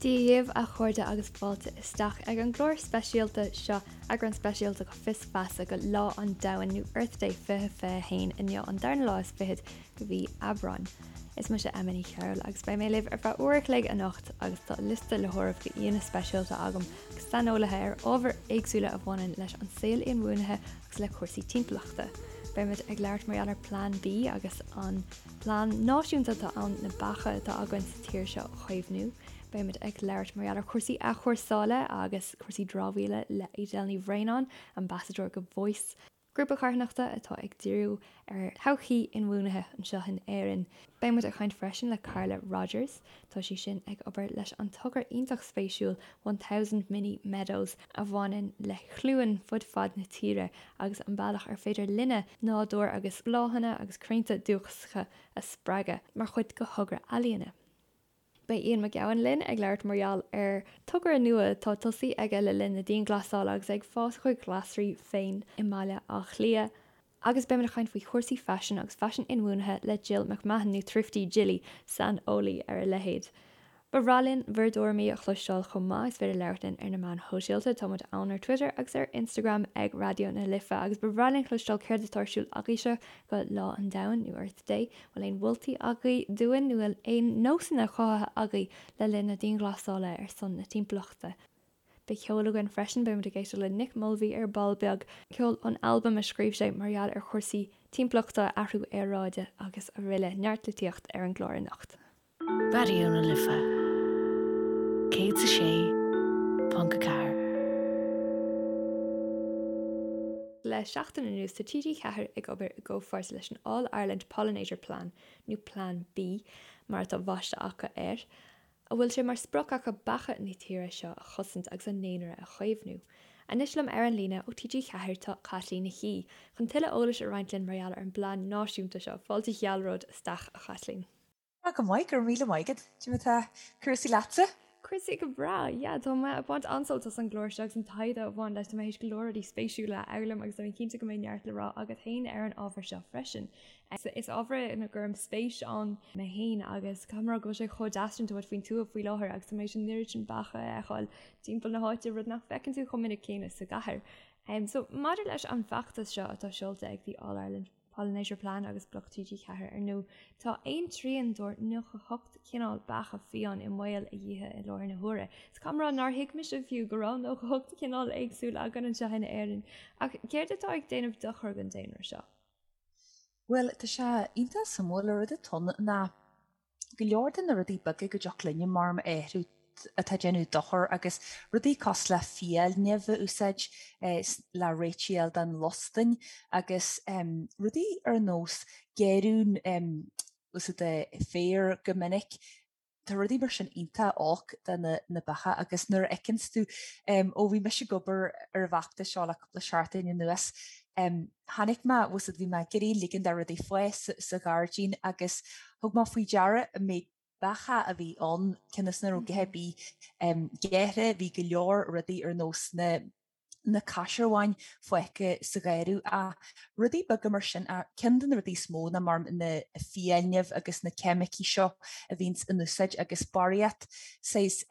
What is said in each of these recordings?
Dia dhaoibh a chairde agus fáilte isteach ag an gclár speisialta seo, eagrán speisialta go Fios Feasa go Lá an Domhain nó Earth Day 2021 inniu an darna lá is fichead go mhí Aibreáin. Is mise Emma Ní Chearúil agus beidh mé libh ar feadh uair a chloig anocht agus tá liosta le háireamh go aíonna speisialta agam agus saineolaithe ar ábhair éagsúla a bhaineann leis an saol inbhuanaithe agus le cúrsaí timpeallachta. Beimid ag labhairt mar gheall ar Plean B agus an Plean náisiúnta atá ann na beacha atá againn sa tír seo a chaomhnú. Beimid ag labhairt mar gheall ar chúrsaí athchúrsála agus cúrsaí dramhaíola le Edel Ní Bhraonáin, Ambasadóir go Voice, grúpa carthanachta atá ag díriú ar thodhchaí inbhuanaithe anseo in Éirinn. Beidh muid ag caint freisin le Carla Rogers. Tá sí sin ag obair leis an togra iontach spéisiúil 1000 Mini Meadows a bhaineann le cluain fud fad na tíre agus an bealach ar féidir linne nádúr agus bláthanna agus crainnte dúchasacha a spreagadh mar chuid de thogra ealaíne. Beidh Ian Mac Gabhann linn ag labhairt mar gheall ar togra nua atá tosaithe aige le linn na dianghlasála agus é ag fás a chuid glasraí féin i mBaile Átha Cliath. Agus beimid ag caint faoi chúrsaí faisin agus faisean inbhuanaithe le Jill McMahon, nó Thrifty Jilly, saineolaí ar a leithéid. Ba bhreá linn bhur dtuairimí a chloisteáil chomh maith, is féidir labhairt linn ar na meáin shóisialta, tá muid ann ar Twitter agus ar Instagram ag Raidió na Life agus ba bhreá linn cloisteáil céard atá ar siúl agaibhse go Lá an Domhain nó Earth Day, bhfuil aon mholtaí agaibh dúinn nó bhfuil aon nósanna cothaithe agaibh le linn na dianghlasála ar son na timpeallachta? Beidh ceol againn freisin, beidh muid ag éisteacht le Nick Mulvey ar ball beag, ceol ón albam a scríobh sé mar gheall ar chúrsaí timpeallachta, athrú aeráide agus araile. Neart litríocht ar an gclár anocht. Raidió na Life 106.4. Le seachtain anuas tá TG4 ag obair i gcomhpháirt leis an All Ireland Pollinator Plan, nó Plean B mar atá baiste acu air, a bhfuil sé mar sprioc acu beacha na tíre seo a chosaint agus a ndaonra a chaomhnú. Anois liom ar an líne ó TG4 tá Caitlín Nic Aoidh, chun tuilleadh eolais a roinnt linn mar gheall ar an bplean náisiúnta seo. Fáilte ghealróid isteach, a Chaitlín. Tá go maith, go raibh míle maith agat. Cad é mar atá cúrsaí leatsa? Cúrsaí go breá, yeah, tá mé ag baint an-sult as an gclár seo agus an taighde a bhain leis, tá mé théis go leor rudaí spéisiúla a fhoghlaim agus tá mé cinnte go mbeidh neart le rá agat féin ar an ábhar seo freisin. Is ábhar é ina gcuirim spéis ann mé féin agus caithfidh mé a rá go bhfuil sé chomh deas sin, tá muid faoin tuath faoi láthair agus tá mé théis an oiread sin beacha a fheiceáil timpeall na háite, rud nach bhfeiceann tú chomh minic céanna sa gcathair. So maidir leis an bhfeachtas seo atá seolta ag The All Ireland Pollinator Plan agus Bloc TG4 ar ndóigh, tá aon trian dár 98 cineál beacha fiáin i mbaol a dhíotha i láthair na huaire. So caithfidh mé a rá nár thuig mise fiú go raibh 98 cineál éagsúil againn anseo in Éirinn. Ach céard atá ag déanamh dochar don daonra seo? Bhuel, tá sé iontach suimiúil, an rud atá ann ná go leor de na rudaí beaga go dtiocfadh linne mar a athrú atá ag déanamh dochar agus rudaí cosúil le fiailnimh a úsáid le réiteach a fháil don lostain agus rudaí ar nós gearradh úsáid féar go minic. Tá rudaí mar sin iontach olc do na beacha agus nuair a fheiceanns tú, ó bhí mise ag obair ar an bhfeachtas seo le cúpla seachtain anuas, chonaic mé, bhfuil a fhios agat, bhí mé ag iarraidh ligean do rudaí fás sa ghairdín agus thug mé faoi deara an méid beacha a bhí ann, cionn is nach raibh a dhath ar bith gearrtha, bhí go leor rudaí ar nós na na caisearbháin fágtha sa gharradh ach rudaí beaga mar sin ach ceann de na rudaí is mó ná mar na fiailnimh agus na ceimicí seo a bhíonns in úsáid agus barraíocht saghas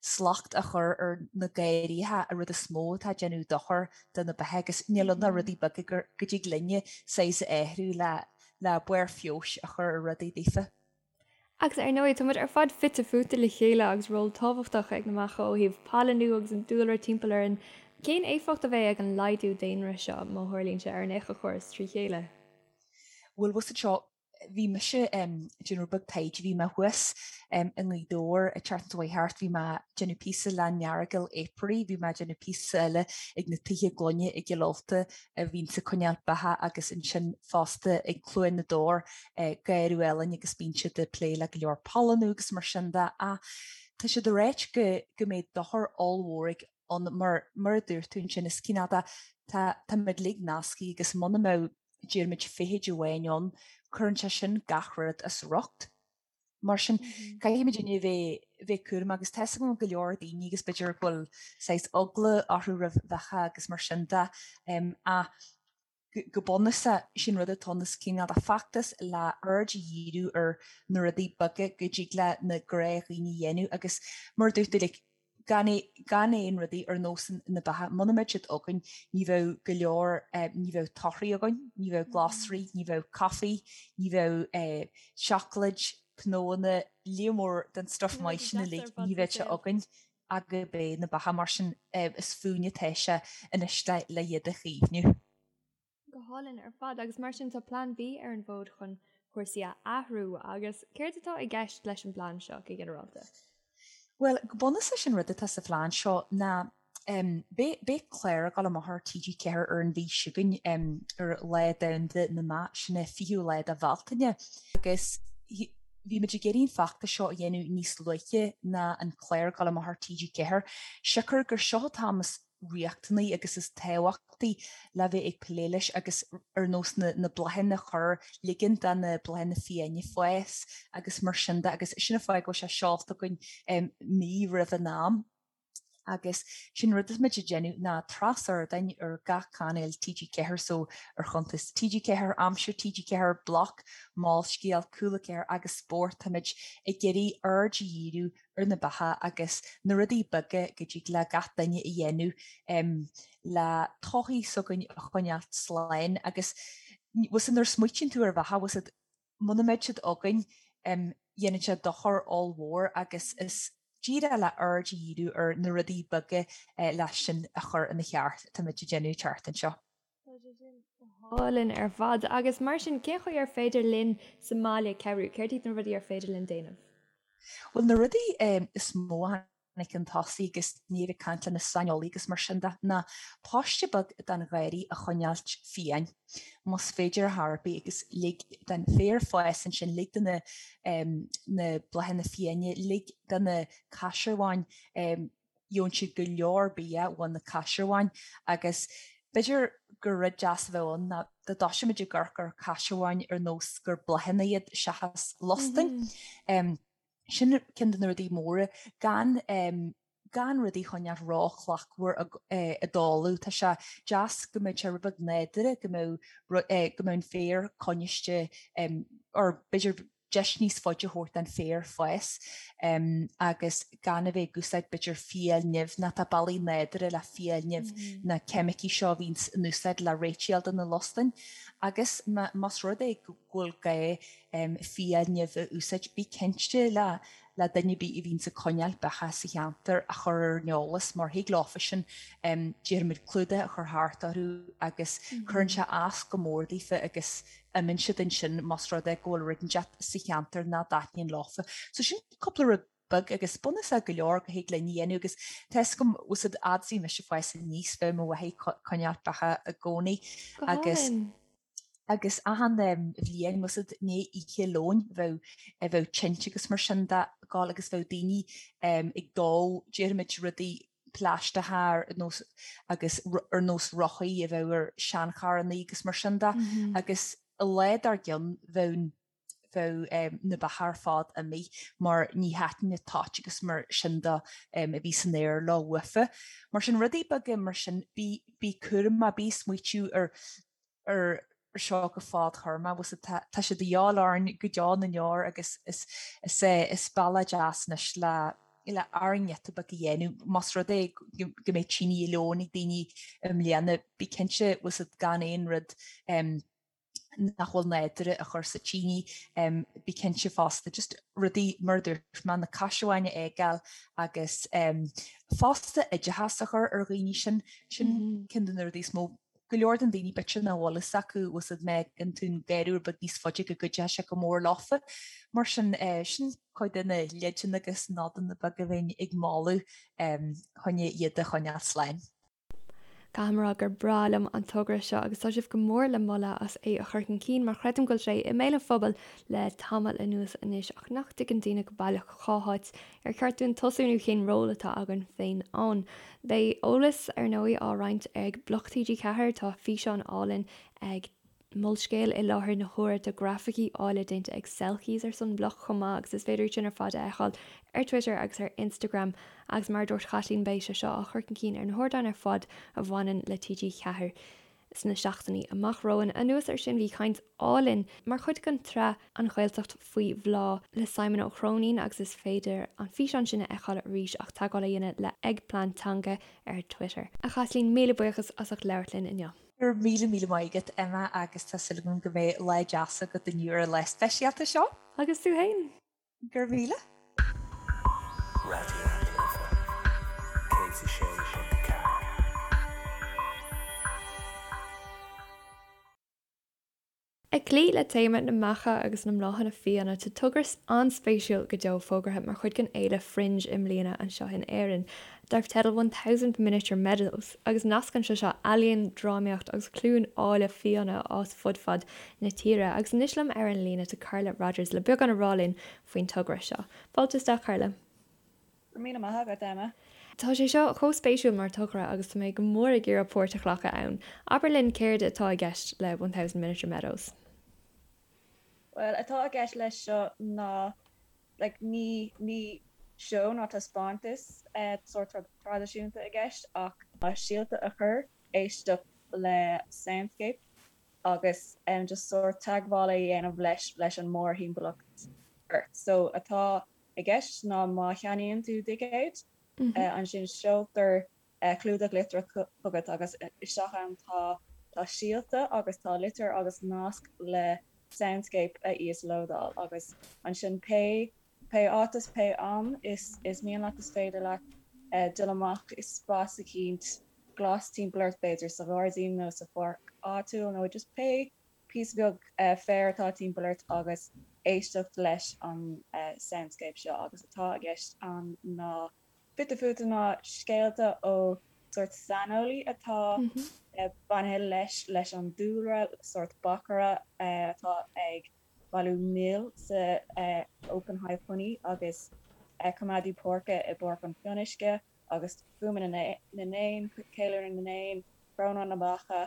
slacht a chur ar na garraithe an rud is mó atá ag déanamh dochar do na beacha agus níl ann ach rudaí beaga go dtig linne saghas a athrú le le barr feabhais a chur ar rudaí daofa. Agus ar ndóigh, tá muid ar fad fite fuaite le chéile agus ról tábhachtach ag na beacha ó thaobh pailiniú agus an dúlra timpeall orainn. Cén éifeacht a bheidh ag an laghdú daonra seo, má tharlaíonn sé, ar an éiceachóras trí chéile? Bhuel, bhfuil a fhios agat seo, bhí mise ag déanamh rud beag taighde, bhí mé thuas i nGaoth Dobhair an tseachtain seo chuaigh thart, bhí mé ag déanamh píosa le an Earagail Apiary, bhí mé ag déanamh píosa eile ag na tithe gloine i gCill Ulta a bhíonns ag coinneáil beacha agus ansin fosta ag Cluain na dTor garradh álainn agus bíonn siad ag plé le go leor pailiniú agus mar sin de ach tá siad ag ráit go go mbeidh dochar ollmhór ag ann mar mar a dúirt tú ansin is cineál de tá táimid uilig nasctha agus muna mbeadh déarfaimid feithid amháin ann cuireann sé sin gach rud as riocht. Mar sin caithfimid a bheith bheith cúramach agus tá a fhios agam go leor daoine agus b'fhéidir go bhfuil saghas eagla orthu roimh bheacha agus mar sin de ach Go bunúsach, sin rud atá ann, is cineál de feachtas le aird a dhíriú ar na rudaí beaga go dtig le na gnáthdhaoine a dhéanamh agus mar a dúirt tú like gan gan aon rudaí ar nós na beacha, muna mbeadh siad againn ní bheadh go leor ní bheadh torthaí againn, ní bheadh glasraí, ní bheadh caife, ní bheadh seacláid, cnónna, líon mór den stuff maith sin uilig, ní bheadh sé againn ach gurb é na beacha, mar sin is fúinne atá sé anois le iad a chaomhnú. Go hálainn ar fad agus mar sin tá Plean B ar an bhfód chun cúrsaí a athrú agus céard atá i gceist leis an bplean seo go ginearálta? Bhuel, go bunúsach sin rud atá sa phlean seo ná beidh beidh clár ag dul amach ar TG4 ar an mhí seo chugainn ar Lá Domhanda na mBeach, sin é 20ú lá de Bhealtaine, agus bhí muid ag iarraidh an feachtas seo a dhéanamh níos luaithe ná an clár ag dul amach ar TG4, siocair gur seo an t-am is riachtanaí agus is tábhachtaí le bheith ag plé leis agus ar nós na na bláthanna a chur, ligean do na bláthanna fiáine fás agus mar sin de agus sin an fáth go bhfuil sé seolta againn mí roimh an am. Agus sin rud atá muid ag déanamh ná tras-ardáin ar gach cainéal TG4 so ar chuntas TG4, Aimsir TG4, Bloc, Molscéal, Cúla 4 agus Spórt táimid ag iarraidh aird a dhíriú ar na beacha agus na rudaí beaga go dtig le gach duine a dhéanamh le todhchaí s'againn a choinneáilt slán agus bhfuil fhios a'd nuair a smaoitíonn tú ar bheacha bhfuil fhios a'd muna mbeadh siad againn dhéanann sé dochar ollmhór agus is díreach le aird a dhíriú ar na rudaí beaga leis sin a chur ina cheart atáimid ag déanamh an tseachtain seo. Tá sé sin go hálainn ar fad. Agus mar sin, cén chaoi ar féidir linn sa mbaile cabhrú? Céard iad na rudaí ar féidir linn déanamh? Bhuel, na rudaí is mó a tháinig chun tosaigh agus muid ag caint le na saineolaithe agus mar sin de ná paiste beag den gharraí a choinneáilt fiáin, más féidir ar chor ar bith agus lig den féar fás ansin, lig do na na bláthanna fiáine, lig do na caisearbháin, gheobhann siad go leor bia ó na caisearbháin agus b'fhéidir gur rud deas a bheadh ann ná dá dtoiseoidh muid ag amharc ar chaisearbháin ar nós gur bláthanna iad seachas lustainn. Sin ceann de na rudaí móra, gan gan rudaí a choinneáil róshlachtmhar i dtalamh. Tá sé deas go mbeadh sé rud beag nádúrtha, go mbeadh go mbeadh an féar coinniste or b'fhéidir deis níos faide a thabhairt don féar fás agus gan a bheith ag úsáid b'fhéidir fiailnimh nó tá bealaí nádúrtha le fiailnimh na ceimicí seo a bhíonns in úsáid le réiteáil do na lustainn agus más rud é go bhfuil gá fiailnimh a úsáid, bí cinnte le le duine ar bith a bhíonns ag coinneáil beacha sa cheantar a chur ar an eolas mar thig leofa sin déarfaimid clúdach a chur thart orthu agus cuireann sé as go mór daofa agus imíonn siad ansin más rud é go bhfuil rud inteacht sa cheantar nach dtaitníonn leofa. So sin cúpla rud beag agus bunúsach go leor go thig linn a dhéanamh agus tá fhios agam bhfuil fhios a'd fhad is a bhí mise ag fás aníos bheadh mo mháthair ag coinneáil beacha i gcónaí agus agus achan bhliain bhfuil fhios a'd i ndiaidh Oíche Leoin bheadh bheadh tinte agus mar sin de ag gabháil agus bheadh daoine ag dó déarfaimid rudaí plaisteacha ar nós agus ar nós rothaí a bheadh ar seancharrannaí agus mar sin de agus an lá dár gcionn bheadh bheadh na beacha ar fad imithe mar ní thaitin an toit agus mar sin de a bhí san aer leo uafa. Mar sin rudaí beaga mar sin bí bí cúramach, bí ag smaoitiú ar ar seo go fadthéarmach bhfuil fhios a'd tá sé de dhíobháil orainn go deo na ndeor agus is is é is bealach deas anois le le ár ngiota beag a dhéanamh más rud é go mbeidh tine Oíche Leoin ag daoine i mbliana bí cinnte bhfuil fhios a'd gan aon rud nach bhfuil nádúrtha a chur sa tine, bí cinnte fosta just rudaí mar a dúirt mé, na caisearbháin a fhágáil agus fosta oideachas a chur ar dhaoine sin, sin ceann de na rudaí is mó. Go leor den daoine b'fhéidir nach bhfuil fhios acu bhfuil fhios a'd má fhágann tú an garraí rud beag níos faide go gcuideoidh sé go mór leofa. Mar sin, sin cuid de na leideanna agus nodanna beaga a bheinn ag moladh chun iad a choinneáil slán. Caithfidh mé a rá gur breá liom an togra seo agus tá sibh go mór le moladh as é a chur chun cinn mar creidim go bhfuil sé i mbéal an phobail le tamall anuas anois ach nach dtuigeann daoine go baileach cá háit ar cheart dúinn tosú nó cén ról atá againn féin ann. Beidh eolas ar ndóigh á roinnt ag Bloc TG4, tá físeán álainn ag Molscéal i láthair na huaire. Tá grafaicí áille déanta ag Selkies ar son Bloc chomh maith agus is féidir iad sin ar fad a fheiceáil ar Twitter agus ar Instagram agus mar a dúirt Caitlín beidh sé seo á chur chun cinn ar na hardáin ar fad a bhaineann le TG4. sna seachtainí amach romhainn. Anuas air sin bhí caint álainn mar chuid den tsraith An Ghaeltacht faoi Bhláth le Simon Ó Cróinín agus is féidir an físeán sin a fheiceáil arís ach teagmháil a dhéanamh le ag Plean Teanga ar Twitter. A Chaitlín, míle buíochas as ucht labhairt linn inniu. Go raibh míle míle maith agat, Emma, agus tá súil agam go mbeidh lá deas agat inniu ar an lá speisialta seo. Agus tú fhéin! Go raibh míle. Raidió na Life 106.4. Ag cloí le téama na mbeacha agus na mbláthanna fiáine, tá togra an-spéisiúil go deo fógartha mar chuid den fhéile Fringe i mbliana anseo in Éirinn, darb teideal 1000 Miniature Meadows, agus nascann sé seo ealaíon, drámaíocht agus cluain áille fiáine a fhás fud fad na tíre. Agus anois liom ar an líne tá Carla Rodgers le beagán a rá linn faoin togra seo. Fáilte isteach Carla. Go raibh míle maith agat, Emma. Tá sé seo chomh spéisiúil mar togra agus tá mé go mór ag iarraidh páirt a ghlacadh ann. Abair linn céard atá i gceist le 1000 Miniature Meadows? Bhuel, atá i gceist leis seo ná like ní ní seó ná taispeántas sórt traidisiúnta i gceist ach síolta a chur, éisteacht le soundscape agus just sórt teagmháil a dhéanamh leis leis an mórthimpeallacht ort. So atá i gceist ná má cheannaíonn tú ticéad, ansin seoltar clúdach litreach chugat agus isteach ann tá tá síolta agus tá litir agus nasc le soundscape a íoslódáil agus ansin pé pé áit is pé am is is mian leat is féidir leat dul amach i spás eicínt glas timpeall ort b'fhéidir sa ghairdín nó sa pháirc áitiúil nó just pé píosa beag féir atá timpeall ort agus éisteacht leis an soundscape seo agus atá i gceist ann ná fite fuaite ná scéalta ó sórt saineolaí atá bainithe leis leis an dúlra, sórt beachaire atá ag bailiú mil sa Open Hive Honey agus coimeádaí páirce i bPáirc an Fhionnuisce agus fuaimeanna na n-éan, ceiliúradh na n-éan, crónán na mbeacha,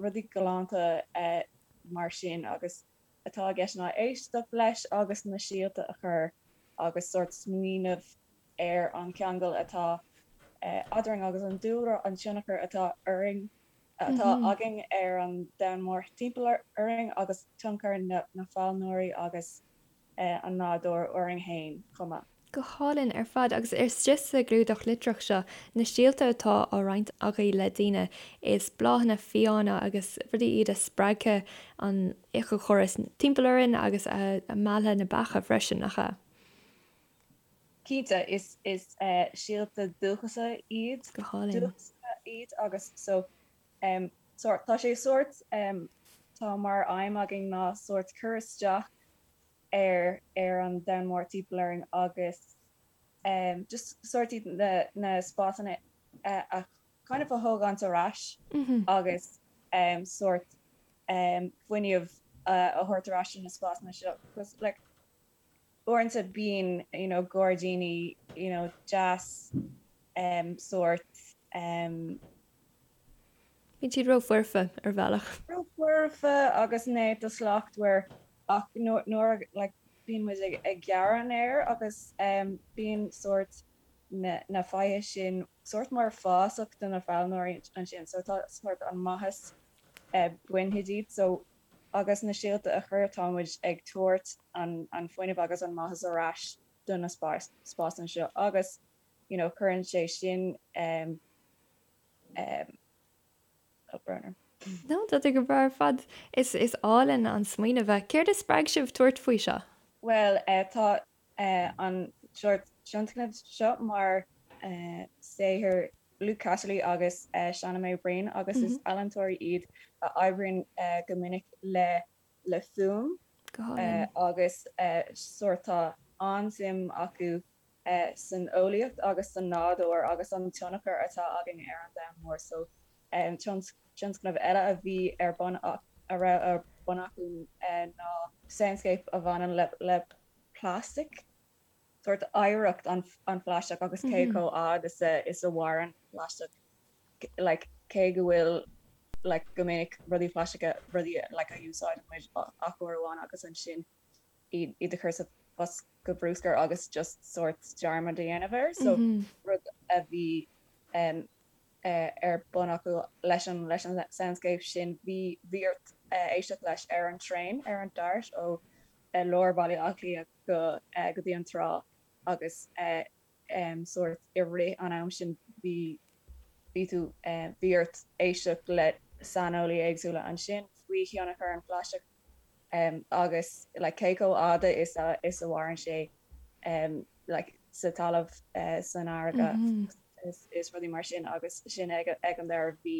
rudaí galánta mar sin agus atá i gceist ná éisteacht leis agus na síolta a chur agus sórt smaoineamh ar an cheangal atá eadrainn agus an dúlra, an tionchar atá orainn, atá againn ar an domhan mór timpeall orainn agus tionchar na bpailneoirí agus an nádúr orainn féin chomh maith. Go hálainn ar fad. Agus istigh sa gclúdach litreach seo, na síolta atá á roinnt agaibh le daoine, is bláthanna fiáine agus rudaí iad a spreagfaidh an éiceachóras timpeall orainn agus a mheallfaidh na beacha freisin, nach ea? Cinnte, is is síolta dúchasacha iad. Go hálainn. Dúchasacha iad agus so sórt, tá sé sórt, tá mar aidhm againn ná sórt cur isteach ar ar an domhan mór timpeall orainn agus just sórt iad na na spásanna a kind of a thógaint ar ais agus sórt fuinneamh a thabhairt ar ais do na spásanna seo because like uaireanta bíonn you know gairdíní you know deas sórt Bíonn siad ró-fhoirfe ar bhealach. Ró-fhoirfe agus néata slachtmhar ach nuair like bíonn muid ag gearradh an fhéir agus bíonn sórt na faiche sin sórt mar fásach do na pailneoirí ansin so tá sórt an maitheas bainte díobh so agus na síolta a chur tá muid ag tabhairt an fuinneamh agus an maitheas ar ais do na spásanna seo agus you know cuireann sé sin Oh, brón orm. No, tá tú go breá ar fad. Is is álainn an smaoineamh é. Céard a spreag sibh tabhairt faoi seo? Bhuel, tá an sórt tionscnamh seo mar saothar Luke Casserly agus Shauna May Breen agus is ealaíontóirí iad a oibríonn go minic le le fuaim agus sórt tá an-suim acu san eolaíocht agus san nádúr agus an tionchar atá againn ar an domhan mór so tionscnamh eile a bhí ar bun a raibh ar bun acu ná soundscape a bhaineann le le plastic sórt oidhreacht an an phlaisteach agus cé chomh fhad is a is a mhaireann plaisteach like cé go bhfuil like go minic rudaí plaisteacha rudaí like a úsáideann muid ach uair amháin agus ansin iad a chur sa bhosca bruscair agus just sórt dearmad a dhéanamh air so rud a bhí. ar bun acu leis an leis an soundscape sin bhí bhí ort éisteacht leis ar an traein ar an Dart ó lár Bhaile Átha Cliath go go dtí an trá agus sórt i rith an am sin bhí bhí tú bhí ort éisteacht le saineolaí éagsúla ansin faoi thionchar an phlaisteach agus like cé chomh fhada is a is a mhaireann sé like sa talamh san fharraige is is rudaí mar sin agus sin ag ag an deireadh bhí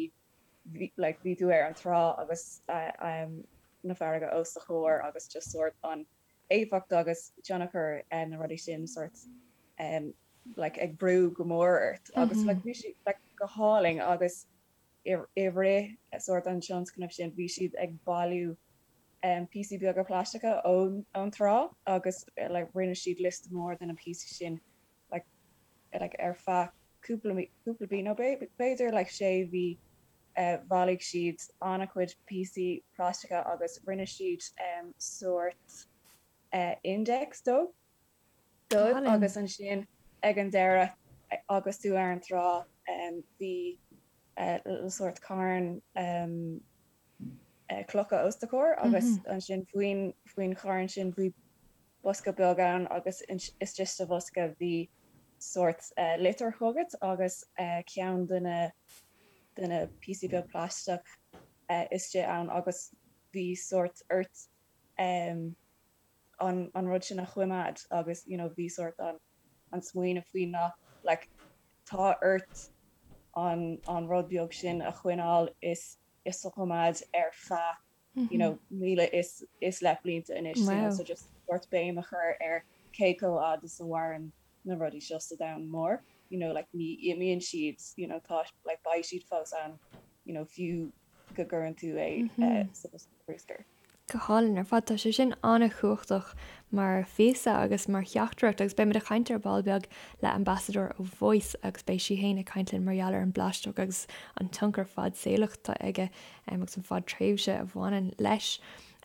bhí like bhí tú ar an trá agus na farraige os do chomhair agus just sórt an éifeacht agus tionchar na rudaí sin sórt like ag brú go mór ort agus like bhí sé like go hálainn agus i rith sórt an tionscnaimh sin bhí siad ag bailiú píosaí beaga plaisteacha ón ón trá agus like rinne siad liosta mór de na píosaí sin like like ar feadh cúpla cúpla mí nó b'fhéidir like sé mhí bhailigh siad an-chuid píosaí plaisteacha agus rinne siad sórt index dó dóibh agus ansin ag an deireadh agus tú ar an trá bhí sórt carn clocha os do chomhair agus ansin faoin faoin charn sin bhí bosca beag ann agus istigh sa bhosca bhí sórt litir chugat agus ceann de na de na píosaí beag plaisteach istigh ann agus bhí sórt ort an an rud sin a choimeád agus you know bhí sórt an an smaoineamh faoi ná like tá ort an an rud beag sin a choinneáil is is a choimeád ar feadh you know 1000 is is leith blianta anois you know so just sórt béim a chur ar cé chomh fhad is a mhaireann na rudaí seo sa domhan mór you know like ní imíonn siad you know tá like beidh siad fós ann you know fiú go gcuireann tú é sa bhosca bruscair. Go hálainn ar fad. Tá sé sin an-chumhachtach mar phíosa agus mar theachtaireacht agus beimid ag caint ar ball beag le ambasadóir ó Voice agus beidh sí féin ag caint linn mar gheall ar an bplaisteach agus an tionchar fadsaolach atá aige agus an fadtréimhse a bhaineann leis.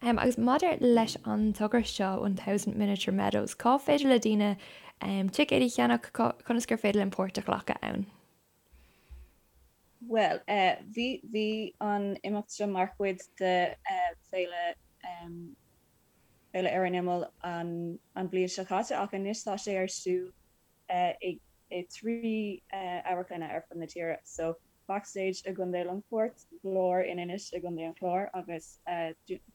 Agus maidir leis an togra seo, 1000 Miniature Meadows, cá féidir le daoine ticéid a cheannach, conas gur féidir linn páirt a ghlacadh ann? Bhuel, bhí, bhí an imeacht seo mar chuid de Féile, Féile Ar an Imeall an, an bhliain seo caite ach anois tá sé ar siúl i, i dtrí amharclanna ar fud na tíre. So, Backstage i gContae Longfoirt, Glór in Inis i gContae an Chláir agus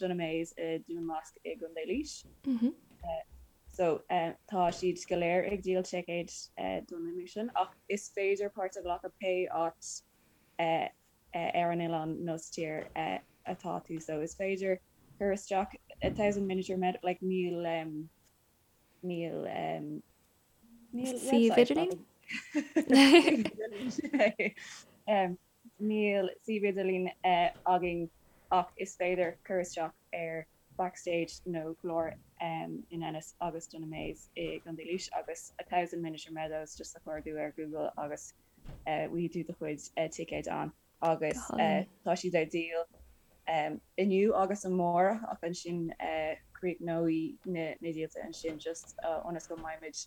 Dunamaise i Dún Lasc i gContae Laois. So, tá siad go léir ag díol ticéid don imeacht sin ach is féidir páirt a ghlacadh pé áit ar an oileán nó sa tír atá tú. So, is féidir cur isteach a thousand miniature med like níl níl níl suíomh idirlín? Níl suíomh idirlín againn ach is féidir cur isteach ar Backstage nó Glór in Ennis agus Dunamaise i gContae Laois agus A Thousand Miniature Meadows just a chuardú ar Google agus bhfaighidh tú do chuid ticéid ann agus tá siad ar díol inniu agus amárach ach ansin críochnóidh na díolta ansin just ionas go mbeimid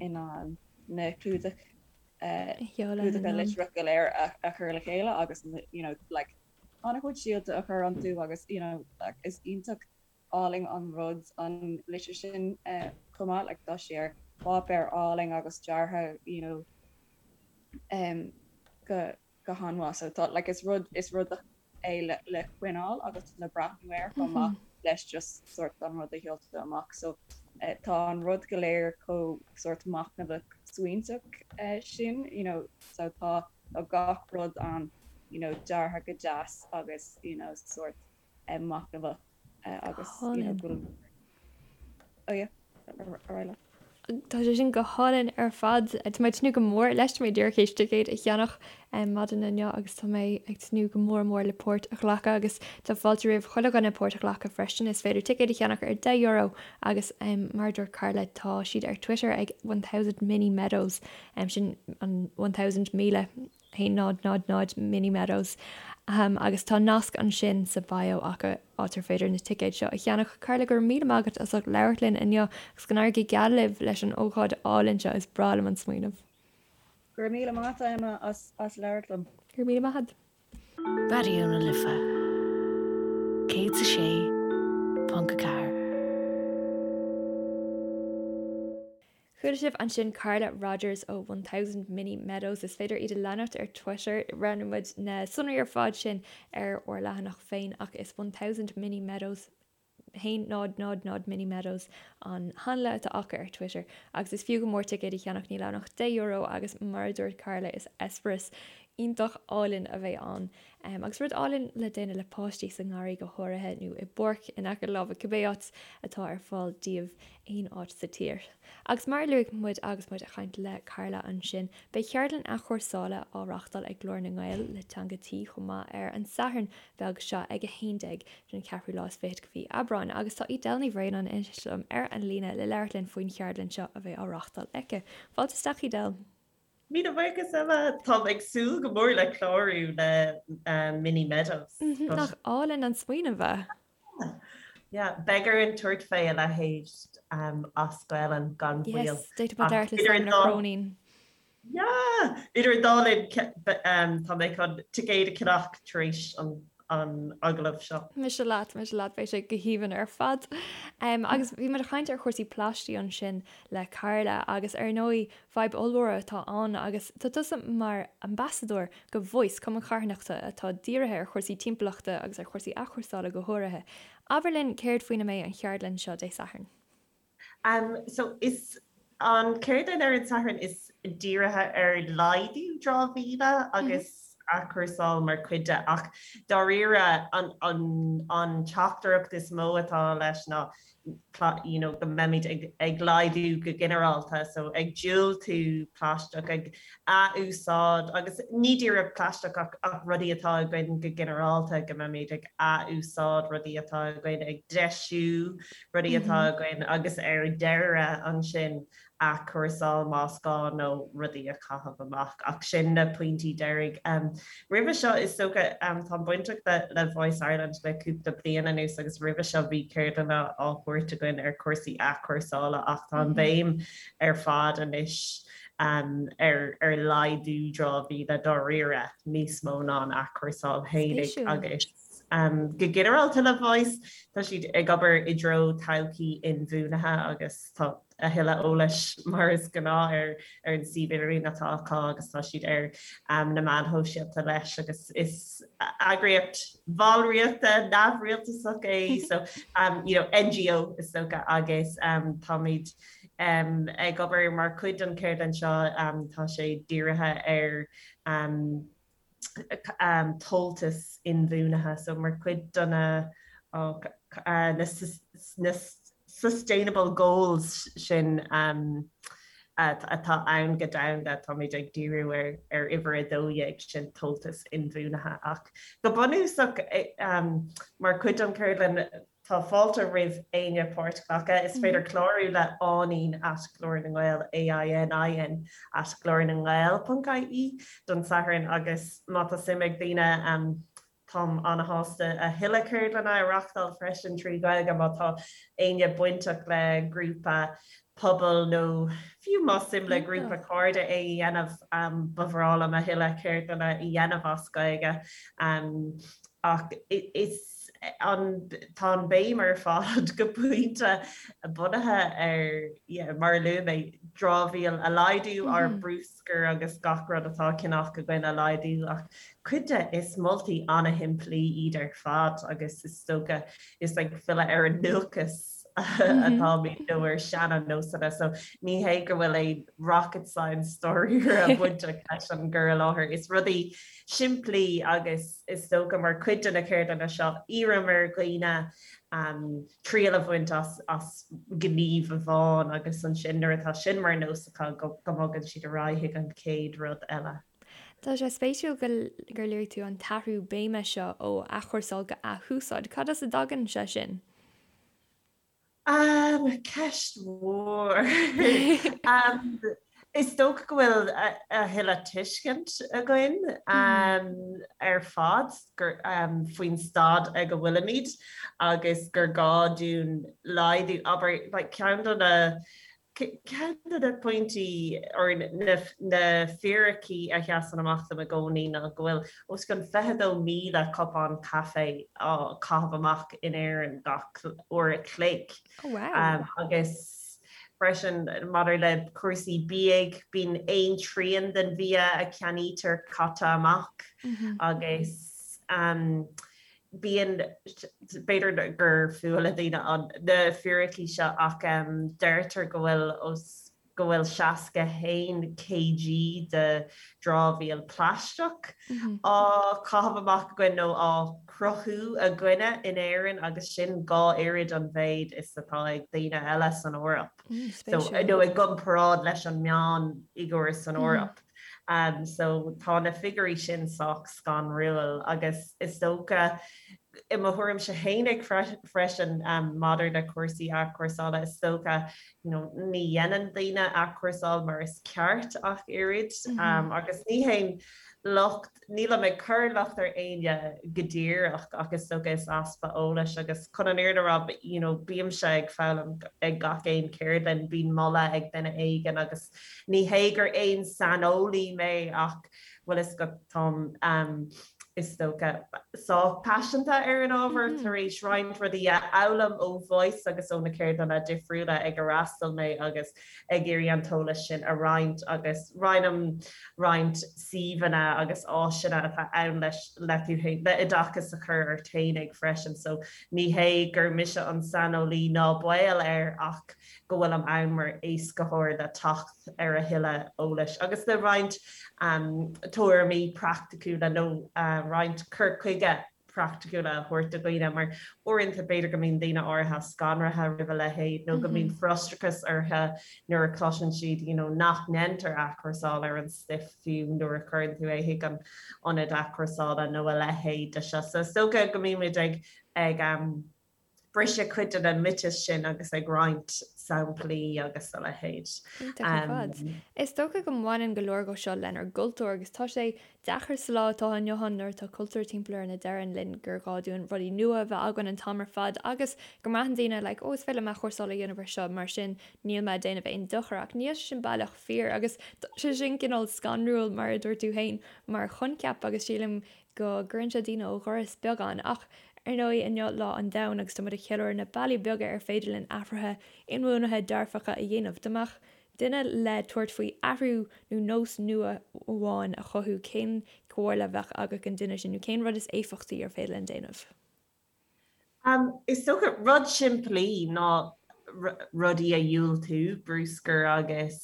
in ann na clúdach clúdacha litreach go léir a chur le chéile agus you know like an-chuid síolta a chur iontu agus you know like is iontach álainn an rud an litir sin chomh maith like tá sé ar pháipéar álainn agus deartha you know um go go han-mhaith so tá like is rud is rud é le le coinneáil agus le breathnú air chomh maith leis just sort an rud a sheoltar amach so tá an rud go léir chomh sort machnamhach smaointeach sin you know so tá tá gach rud ann you know deartha go deas agus you know sort machnamhach agus you know go oh yeah ar aghaidh leat. Tá sé sin go hálainn ar fad. Tá mé ag tnúth go mór leis. Tá mé díreach théis ticéad a cheannach maidin inniu agus tá mé ag tnúth go mór mór le páirt a ghlacadh agus tá fáilte roimh chuile dhuine páirt a ghlacadh freisin. Is féidir ticéad a cheannach ar €10 agus mar a dúirt Carla tá siad ar Twitter ag 1000 Mini Meadows sin an 1000 1000 1 0 0 0 Mini Meadows agus tá nasc ansin sa bio acu áit ar féidir na ticéid seo a cheannach. Carla, go raibh míle maith agat as ucht labhairt linn inniu agus go n-éirí go geal libh leis an ócáid álainn seo, is breá liom an smaoineamh. Go raibh míle maith agat Emma as as labhairt liom. Go raibh míle maith agat. Raidió na Life 106.4. Chuala sibh ansin Carla Rodgers ó 1000 Mini Meadows. Is féidir iad a leanacht ar Twitter. Roinnfidh muid na sonraí ar fad sin ar ár leathanach féin ach is 1000 Mini Meadows 1 0 0 0 Mini Meadows an hanla atá acu ar Twitter agus is fiú go mór ticéad a cheannach, níl ann ach €10 agus mar a dúirt Carla is eispéireas iontach álainn a bheidh ann agus rud álainn le déanamh le páistí sa ngarraí go háirithe nó i bpáirc in aice láimhe cibé áit atá ar fáil daoibh aon áit sa tír. Agus mar a luaigh muid agus muid ag caint le Carla ansin, beidh ceardlann athchúrsála á reáchtáil ag Glór na nGael le Teanga Tí chomh maith ar an Satharn bheag seo ag 11 den cheathrú lá is fichead de mhí Aibreáin agus tá Edel Ní Bhraonáin anois liom ar an líne le labhairt linn faoin cheardlann seo a bheidh á reáchtáil aici. Fáilte isteach Edel! Míle buíochas Emma! Táim ag súil go mór le clárú le Mini Meadows. Nach álainn an smaoineamh é? Yeah, beidh orainn tabhairt fé a leithéid as Gaelainn gan mhoill. Yes, d'fhéadfadh muid labhairt le Simon Ó Cróinín. Yeah! Idir an dá linn, tá mé chun ticéad a cheannach tar éis an agallaimh seo. Mise leat, mise leat, beidh sé go haoibhinn ar fad. Agus bhí muid ag caint ar chúrsaí plaistigh ansin le Carla agus ar ndóigh fadhb ollmhór atá ann agus tá tusa mar ambasadóir go Voice, cumann carthanachta atá dírithe ar chúrsaí timpeallachta agus ar chúrsaí athchúrsála go háirithe. Abair linn céard faoina mbeidh an cheardlann seo Dé Sathairn? Um so is an cheardlann ar an Satharn is dírithe ar laghdú dramhaíola agus athchúrsáil mar chuid de ach dáiríre an an an teachtaireacht is mó atá leis ná you know go mbeimid ag ag laghdú go ginearálta so ag diúltú plaisteach, ag athúsáid agus ní díreach plaisteach ach ach rudaí atá againn go ginearálta go mbeimid ag athúsáid rudaí atá againn, ag deisiú rudaí atá againn agus ar deireadh ansin athchúrsáil más gá nó rudaí a chaitheamh amach ach sin na pointí deiridh. Roimhe seo is dócha, táim bainteach le Voice Ireland le cúpla bliain anuas agus roimhe seo bhí ceardlanna á thabhairt againn ar chúrsaí athchúrsála ach tá an bhéim ar fad anois ar ar laghdú dramhaíola dáiríre níos mó ná an athchúrsáil fhéinig agus Go ginearálta le Voice, tá siad ag obair i dtreo todhchaí inbhuanaithe agus tá a thuilleadh eolais mar is gnáth ar ar an suíomh idirlín atá acu agus tá siad ar na meáin shóisialta leis agus is eagraíocht bhallraíochta neamhrialtasach é so you know NGO is dócha agus táimid ag obair mar chuid den cheardlann seo tá sé dírithe ar tomhaltas inbhuanaithe. So mar chuid de na na sustainable goals sin atá ann go domhanda, táimid ag díriú ar ar uimhir 12 sin tomhaltas inbhuanaithe. Ach go bunúsach mar chuid den cheardlann, Tá fáilte roimh éinne páirt a ghlacadh. Is féidir clárú le Áinín at Glór na nGael, A-I-N-I-N at Glór na nGael ponc IE, don Satharn agus má tá suim ag daoine, táim ana-shásta a thuilleadh ceardlanna a reachtáil freisin trí Ghaeilge má tá éinne bainteach le grúpa pobail nó fiú más suim le grúpa cairde é a dhéanamh, ba bhreá liom a thuilleadh ceardlanna a dhéanamh as Gaeilge. Ach is. an tá an béim ar fad go pointe bunaithe ar yeah, mar a luaigh mé, dramhaíl a laghdú, ár bruscar agus gach rud atá á cheannach againn a laghdú ach cuid de is moltaí ana-shimplí iad ar fad agus is dócha is ag filleadh ar an ndúchas atáimid nó ar seana-nósanna so ní hé go bhfuil aon rocket science dáiríre bainteach leis an gcur i láthair. Is rudaí simplí agus is dócha mar chuid de na ceardlanna seo, iarraim ar dhaoine triail a bhaint as as gníomh amháin agus ansin nuair atá sin mar nós acu go mbogann siad ar aghaidh chuig an chéad rud eile. Tá sé spéisiúil gur luaigh tú an t-athrú béime seo ó athchúrsáil go athúsáid. Cad as a dtagann sé sin? Ceist mhór. Is dócha go bhfuil a thuilleadh tuiscint againn ar fad faoin staid ag a bhfuilimid agus gur gá dúinn laghdú, abair, like ceann de na. Ceann de na pointí or na fíricí a sheasann amach dom i gcónaí ná go bhfuil os cionn 22,000 cupán caife á caitheamh amach in Éirinn gach uair a chloig. Oh wow. Agus freisin maidir le cúrsaí bídh, bíonn aon trian den bhia a cheannaítear caite amach agus bíonn, b'fhéidir gur fuath le daoine an, na fíricí seo ach deirtear go bhfuil os, go bhfuil 61 kg de dramhaíl plaisteach á caitheamh amach againn nó á cruthú againne in Éirinn agus sin 2 oiread an mhéid is atá ag daoine eile san Eoraip. So, nó i gcomparáid leis an meánfhigiúr san Eoraip. So tá na figiúirí sin sách scanrúil agus is dócha, i mo thuairimse fhéinig freisin maidir le cúrsaí athchúrsála, is dócha you know ní dhéanann daoine athchúrsáil mar is ceart ach oiread agus ní haon locht, nílim ag cur locht ar éinne go díreach ach is dócha is easpa eolais agus chun an fhírinne a rá you know bímse ag foghlaim ag gach aon cheardlann, bíonn moladh ag duine éigin agus Ní hé gur aon saineolaí mé ach bhfuil fhios agat táim is dócha sách paiseanta ar an ábhar tar éis roinnt rudaí a fhoghlaim ó Voice agus ó na ceardlanna difriúla ag ar fhreastail mé agus ag iarraidh an t-eolas sin a roinnt agus roinnim roinnt suíomhanna agus áiseanna atá ann leis le tú féin le oideachas a chur ort fhéinig freisin so ní hé gur mise an saineolaí ná baol air ach go bhfuilim ann mar éascaitheoir le teacht ar a thuilleadh eolais agus le roinnt tuairimí praiticiúla nó roinnt cur chuige praiticiúla a thabhairt do dhaoine mar uaireanta b'fhéidir go mbíonn daoine áirithe scanraithe roimh a leithéid nó go mbíonn frustrachas orthu nuair a chloiseann siad you know nach ndéantar athchúrsáil ar an stuif fiú nuair a chuireann tú é chuig an ionad athchúrsála nó a leithéid de seo. So is dócha go mbímid ag ag briseadh cuid de na miotais sin agus ag roinnt samplaí agus a leithéid. Iontach ar fad. Is dócha go mbaineann go leor dhó seo lenár gcultúr agus tá sé deacair sa lá atá inniu ann nuair atá cultúr timpeall orainn a deireann linn gur gá dúinn rudaí nua a bheith againn an t-am ar fad agus go mbraitheann daoine like oh is féidir liom athchúrsáil a dhéanamh ar seo mar sin níl mé ag déanamh aon dochar ach níl sé sin baileach fíor agus tá sé sin cineál scanrúil mar a dúirt tú féin mar choincheap agus sílim go gcuireann sé daoine ó dhoras beagán ach Ar ndóigh, inniu Lá an Domhain agus tá muid ag ceiliúradh na bealaí beaga ar féidir linn athruithe inbhuanaithe dearfacha a dhéanamh. Dá mbeadh duine le tabhairt faoi athrú nó nós nua amháin a chothú, cén chomhairle a bheadh agat don duine sin nó cén rud is éifeachtaí ar féidir linn déanamh? Is dócha rud simplí ná rudaí a dhiúltú, bruscar agus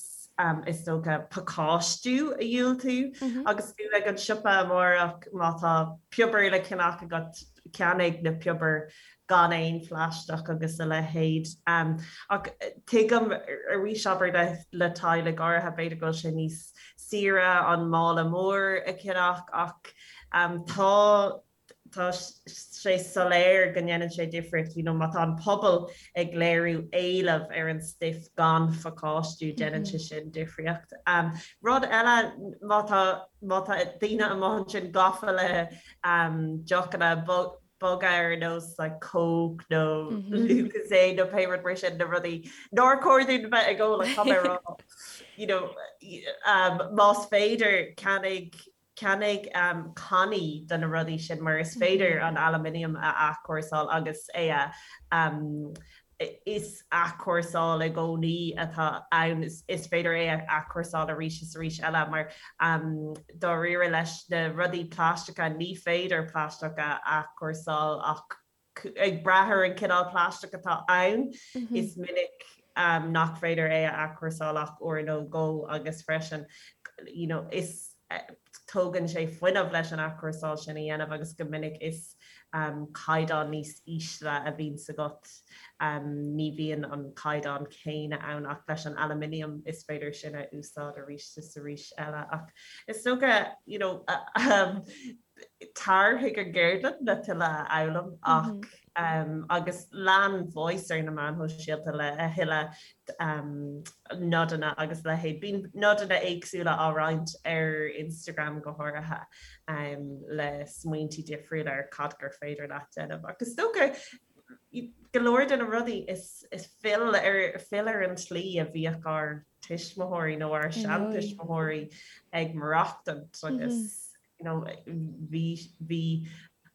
is dócha pacáistiú a dhiúltú. Agus tú ag an siopa amárach, má tá piobar le ceannach agat, ceannaigh na piobair gan aon phlaisteach agus a leithéid. Ach tuigim arís, abair le teaghlaigh áirithe, b'fhéidir go bhfuil sé níos saoire an mála mór a cheannach ach tá tá sé soiléir go ndéanann sé difríocht, you know, má tá an pobal ag léiriú éileamh ar an stuif gan phacáistiú, déanann sé sin difríocht. Rud eile, má tá, má tá daoine amuigh ansin gafa le deochanna boga ar nós like Coke nó Lucozade nó pé rud mar sin, na rudaí nár chóir dúinn bheith ag ól, tá mé ag rá, you know, más féidir ceannaigh Ceannaigh cannaí de na rudaí sin mar is féidir an aluminium a athchúrsáil agus é a is athchúrsáil i gcónaí atá ann. Is féidir é a athchúrsáil arís is arís eile mar dáiríre leis na rudaí plaisteacha ní féidir plaisteach a athchúrsáil ach ag brath ar an cineál plaisteach atá ann, is minic nach féidir é a athchúrsáil ach uair nó dhó agus freisin you know is tógann sé fuinneamh leis an athchúrsáil sin a dhéanamh agus go minic is caighdeán níos ísle a bhíonns agat, ní bhíonn an caighdeán céanna ann ach leis an aluminium is féidir sin a úsáid arís is arís eile ach is dócha you know Tar chuig an gceardlann le tuilleadh a fhoghlaim ach agus lean Voice ar na meáin shóisialta le a thuilleadh nodanna agus a leithéid. Bíonn nodanna éagsúla á roinnt ar Instagram go háirithe le smaointí difriúla ar cad gur féidir leat déanamh. Ach is dócha. go leor de na rudaí is is fill ar fill ar an tslí a bhíodh ár tuismitheoirí nó ár seantuismitheoirí ag maireachtaint agus you know bhí bhí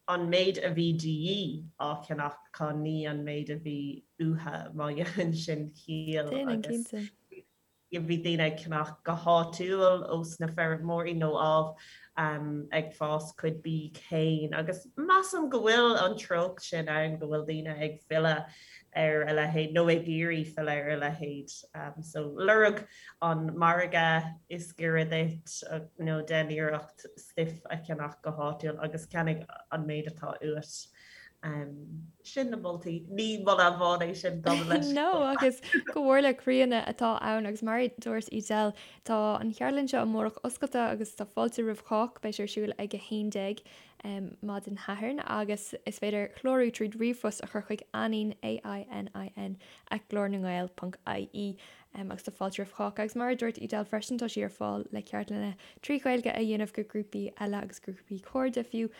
an méid a bhí de dhíth á cheannach acu ní an méid a bhí uathu má dhéanann sin ciall agus bhí daoine ag ceannach go háitiúil ós na feirmeoirí nó ámh ag fás cuid bídh féin agus measaim go bhfuil an treocht sin ann go bhfuil daoine ag filleadh ar a leithéid nó ag iarraidh filleadh ar a leithéid. So lorg an margadh is giorra duit nó déan iarracht stuif a cheannach go háitiúil agus ceannaigh an méid atá uait. Sin na moltaí. Ní moladh amháin é sin gabh mo leithscéal. No, agus comhairle chríonna atá ann agus mar a dúirt Edel, tá an cheardlann seo amárach oscailte agus tá fáilte roimh chách. Beidh sé ar siúl ag 11 maidin Shathairn agus is féidir clárú tríd ríomhphost a chur chuig ainin, A-I-N-I-N, at glornangael ponc ie agus tá fáilte roimh chách. Agus mar a dúirt Edel freisin, tá sí ar fáil le ceardlanna trí Ghaeilge a dhéanamh go grúpaí eile agus grúpaí cairde fiú.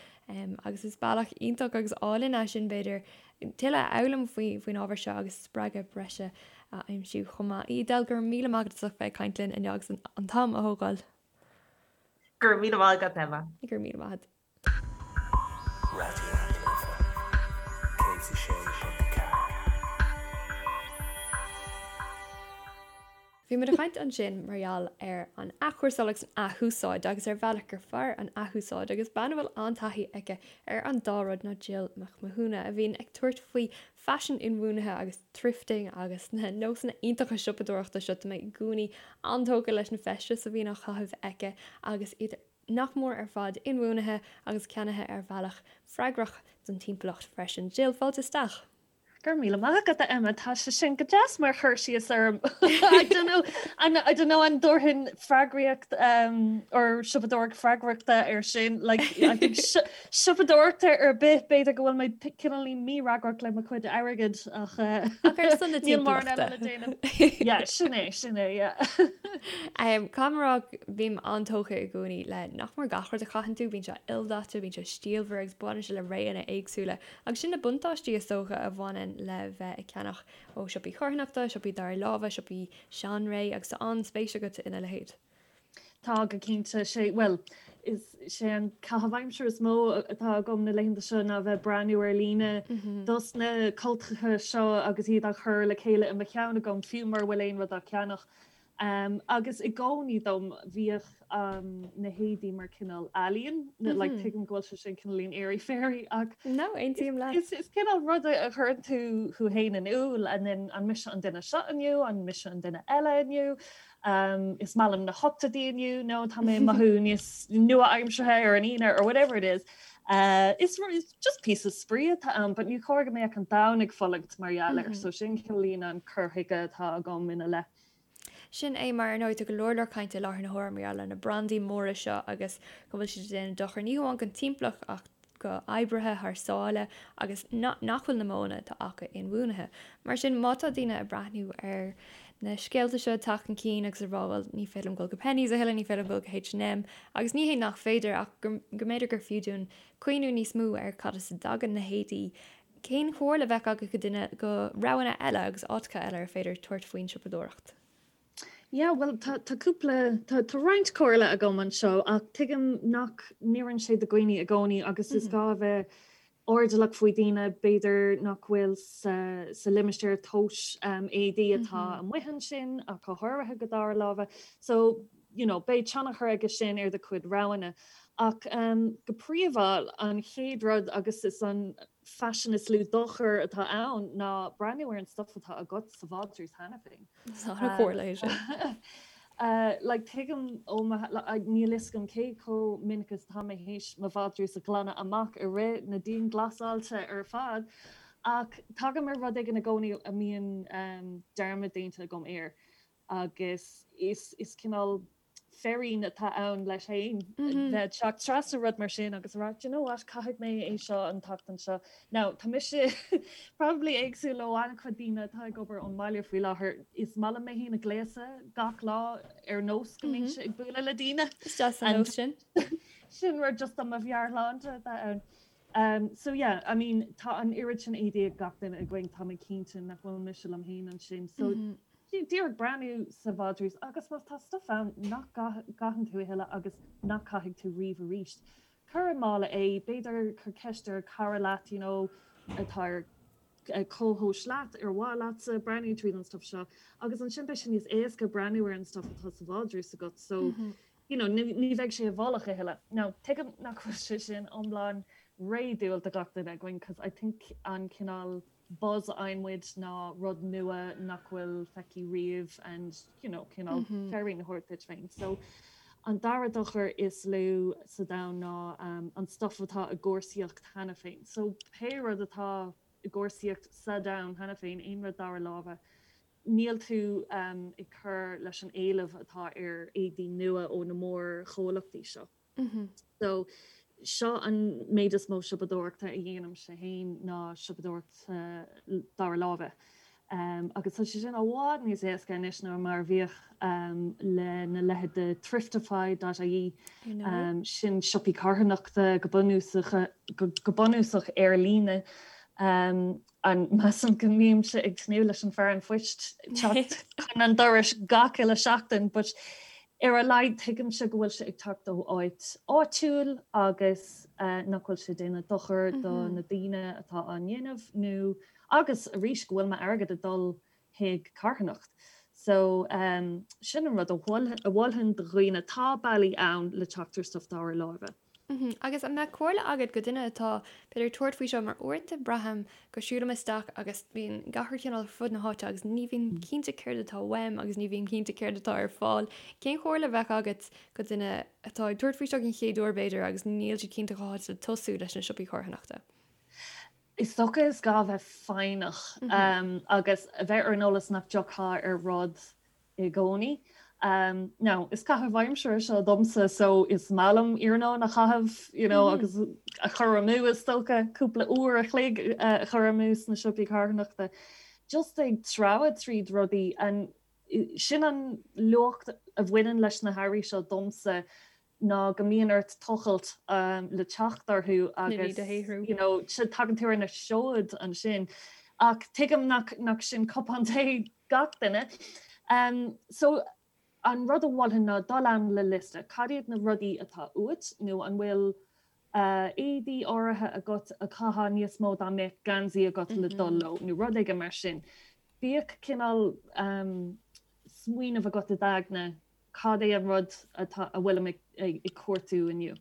Agus is bealach iontach agus álainn é sin, b'fhéidir, tuilleadh a fhoghlaim faoin ábhar seo agus spreagadh breise a aimsiú chomh maith. Edel, go raibh míle maith agat as ucht bheith ag caint linn inniu agus an t-am a thógáil. Go raibh míle maith agat, Emma. Go raibh míle maith agat. Raidió na Life 106.4. Bhí muid ag caint ansin mar gheall ar an athchúrsáil agus an athúsáid agus ar bhealach gur fearr an athúsáid agus bean a bhfuil an-taithí aici ar an dá rud ná Jill Mac Mathúna a bhíonn ag tabhairt faoi faisean inbhuanaithe agus thrifting agus na nósanna iontacha siopadóireachta seo. Tá mé i gcónaí an-tógtha leis na feistis a bhíonn á chaitheamh aici agus iad nach mór ar fad inbhuanaithe agus ceannaithe ar bhealach freagrach don timpeallacht freisin. Jill, fáilte isteach! Go raibh míle maith agat, a Emma. Tá sé sin go deas mar chur síos orm. I don't know, an, I don't know an dtabharfainn freagraíocht um, or siopadóireacht freagrachta ar sin. Like, I think siopadóireacht ar bith b'fhéidir go bhfuil mé cineáilín mífhreagrach le mo chuid airgid ach uh, Ach ar son na níl mórán eile le déanamh. Yeah, sin é, sin é, yeah. Um, Caithfidh mé a rá, bím an-tógtha i gcónaí le nach mór gach rud a chaitheann tú, bíonn sé ildaite, bíonn sé stílmhar agus baineann sé le réanna éagsúla. Agus sin na buntáistí, is dócha, a bhaineann le bheith ag ceannach ó siopaí carthanachta, siopaí dara láimhe, siopaí seanré, agus tá an-spéis agat ina leithéid. Tá, go cinnte. Sé, bhuel, is sé an caitheamh aimsire is mó atá agam na laethanta seo ná bheith breathnú ar líne dos na cultacha seo agus iad á chur le chéile i mo cheann agam, fiú mura bhfuil aon rud á cheannach. Agus i gcónaí dom bhíodh na héadaí mar cineál ealaíon, like tuigim go bhfuil sé sin cineáilín airy fairy ach No, aontaím leat. is is cineál rud a chuireann tú thú féin in iúl and then an mise an duine seo inniu, an mise an duine eile inniu, is maith liom na hochtóidí inniu nó tá mé ag mothú níos nua-aimseartha ar an Aoine or whatever it is. Is is just píosa spraoi atá ann but ní chóir go mbeadh an domhan ag fulaingt mar gheall air so sin cineáilín an cur chuige atá agam ina leith. Sin é mar, ar ndóigh, tá go leor leor cainte i láthair na huaire mar gheall ar na brandaí móra seo agus go bhfuil siad ag déanamh dochar ní hamháin don timpeallacht ach go oibrithe thar sáile agus nach bhfuil na modhanna atá acu inbhuanaithe. Mar sin, má tá daoine ag breathnú ar na scéalta seo ag teacht chun cinn agus ag rá bhuel ní féidir liom dul go Penneys a thuilleadh, ní féidir liom dul go H&M agus ní hé nach féidir ach go mb'fhéidir gur fiú dúinn cuimhniú níos mó ar cad as a dtagann na héadaí Cén chomhairle a bheadh agat go duine go roghanna eile agus áiteacha eile ar féidir tabhairt faoin siopadóireacht? Yeah, bhuel, tá, tá cúpla, tá, tá roinnt comhairle agam anseo ach tuigim nach n-oireann sé do dhaoine i gcónaí agus is gá a bheith airdeallach faoi daoine b'fhéidir nach bhfuil sa, sa limistéar tomhais um, éadaí atá amuigh ansin ach go háirithe go dara láimhe. So, you know, beidh tionchar aige sin ar do chuid roghanna. Ach um, go príomha, an chéad rud agus is an faisean is lú dochar atá ann ná breathnú ar an stuif atá agat sa vádrús cheana féin. Is an-chomhairle é sin. Uh, like, tuigim ó mo, like, níl fhios agam cé chomh minic is atá mé théis mo vádrús a ghlanadh amach i rith na dianghlasáilte ar fad, ach tagaim ar rud éigin i gcónaí a mbíonn um, dearmad déanta agam air. agus is is cineál féirín atá ann leis féin bheith ag teacht trasna rud mar sin agus a rá, do you know what, caithfidh mé é seo an tseachtain seo. Now, tá mise probably éagsúil ó an-chuid daoine atá ag obair ón mbaile faoi láthair. Is maith liom mé féin a ghléasadh gach lá ar nós go mbeinnse ag bualadh le daoine. Is deas an nós sin. Sin rud just do mo mheabhairshláinte atá ann. So yeah, I mean tá an oiread sin éadaí ag gach duine againn, tá mé cinnte nach bhfuil mise liom féin ansin. So díreach breathnú sa vádrús agus má tá stuff ann nach gcaitheann tú a thuilleadh agus nach caithfidh tú riamh arís, cuir i mála é, b'fhéidir cuir ceist ar cara leat you know atá ar comhthomhas leat, ar mhaith leatsa breathnú tríd an stuff seo agus ansin beidh sé níos éasca breathnú ar an stuff atá sa vádrús agat so you know ní bheidh sé i bhfolach a thuilleadh. Now tuigim nach bhfuil sé sin iomlán réadúil do gach duine againn cos I think an cineál buzz a fhaigheann muid ná rud nua nach bhfuil feicthe riamh and you know cineál féirín a thabhairt duit féin. So an dara dochar is lú sa domhan ná an stuff atá i gcúrsaíocht cheana féin. So pé rud atá i gcúrsaíocht sa domhan cheana féin, aon rud dara láimhe, níl tú ag cur leis an éileamh atá ar éadaí nua ó na mórchomhlachtaí seo. So seo an méid is mó siopadóireachta a dhéanaimse féin ná siopadóireacht dara láimhe. Agus tá sé sin i bhfad níos éasca anois ná mar a bhíodh le na leithéid de Thriftify dot ie, sin siopaí carthanachta go bunúsach go bunúsach ar líne. And measaim go mbímse ag tnúth leis an fear an phoist teacht chun an dorais gach uile seachtain, but ar a laghad tuigimse go bhfuil sé ag teacht ó áit áitiúil agus nach bhfuil sé ag déanamh dochar do na daoine atá á ndéanamh nó agus arís go bhfuil m'airgead ag dul chuig carthanacht. So sin an rud a mholfainn do dhaoine, tá bealaí ann le teacht ar stuff dara láimhe. Agus an mbeadh comhairle agat go duine atá, b'fhéidir, ag tabhairt faoi seo mar uaireanta braithim go siúlaim isteach agus bíonn gach rud cineál ar fud na háite agus ní bhím cinnte céard atá uaim agus ní bhím cinnte céard atá ar fáil. Cén chomhairle a bheadh agat go duine atá ag tabhairt faoi seo den chéad uair b'fhéidir agus níl siad cinnte cá háit le tosú leis na siopaí carthanachta? Is dócha is gá bheith foighneach agus a bheith ar an eolas nach dtiocfá ar rud i gcónaí. Now, is caitheamh aimsire seo domsa so is maith liom iarnóin a chaitheamh you know agus a chur amú is dócha, cúpla uair a chloig a chur amú sna siopaí carthanachta. Just ag treabhadh tríd rudaí and sin an luach a bhaineann leis na hearraí seo domsa ná go mbíonn ort tochailt le teacht orthu agus you know tagann tú ar na seoid ansin. Ach tuigim nach nach sin cupán tae gach duine. So an rud a mholfainn ná dul ann le liosta. Cad iad na rudaí atá uait nó an bhfuil éadaí áirithe agat a chaithfeá níos mó dá mbeadh geansaí agat le dul leo nó rud éigin mar sin. Bíodh cineál smaoineamh agat i d'aigne cad é an rud atá, a bhfuilim ag cuartú inniu.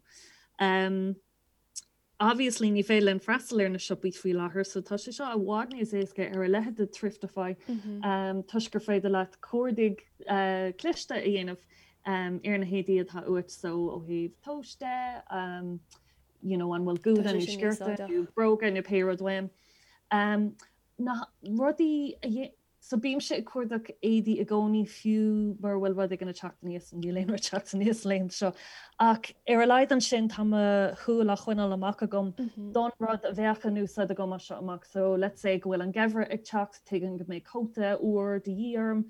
Obviously ní féidir linn freastal ar na siopaí faoi láthair so tá sé seo i bhfad níos éasca ar a leithéid de Thriftify toisc gur féidir leat cuardaigh cliste a dhéanamh ar na héadaí atá uait so ó thaobh tomhais de, you know an bhfuil gúna nó sciorta nó bróga nó pé rud uaim. Na rudaí a So bímse ag cuardach éadaí i gcónaí fiú mura bhfuil rud éigin ag teacht aníos, níl aon rud ag teacht aníos laethanta seo, ach ar a laghad ansin tá mo shúil á choinneáil amach agam don rud a bheadh in úsáid agam as seo amach. So let's say go bhfuil an geimhreadh ag teacht, tuigim go mbeidh cóta úr de dhíth orm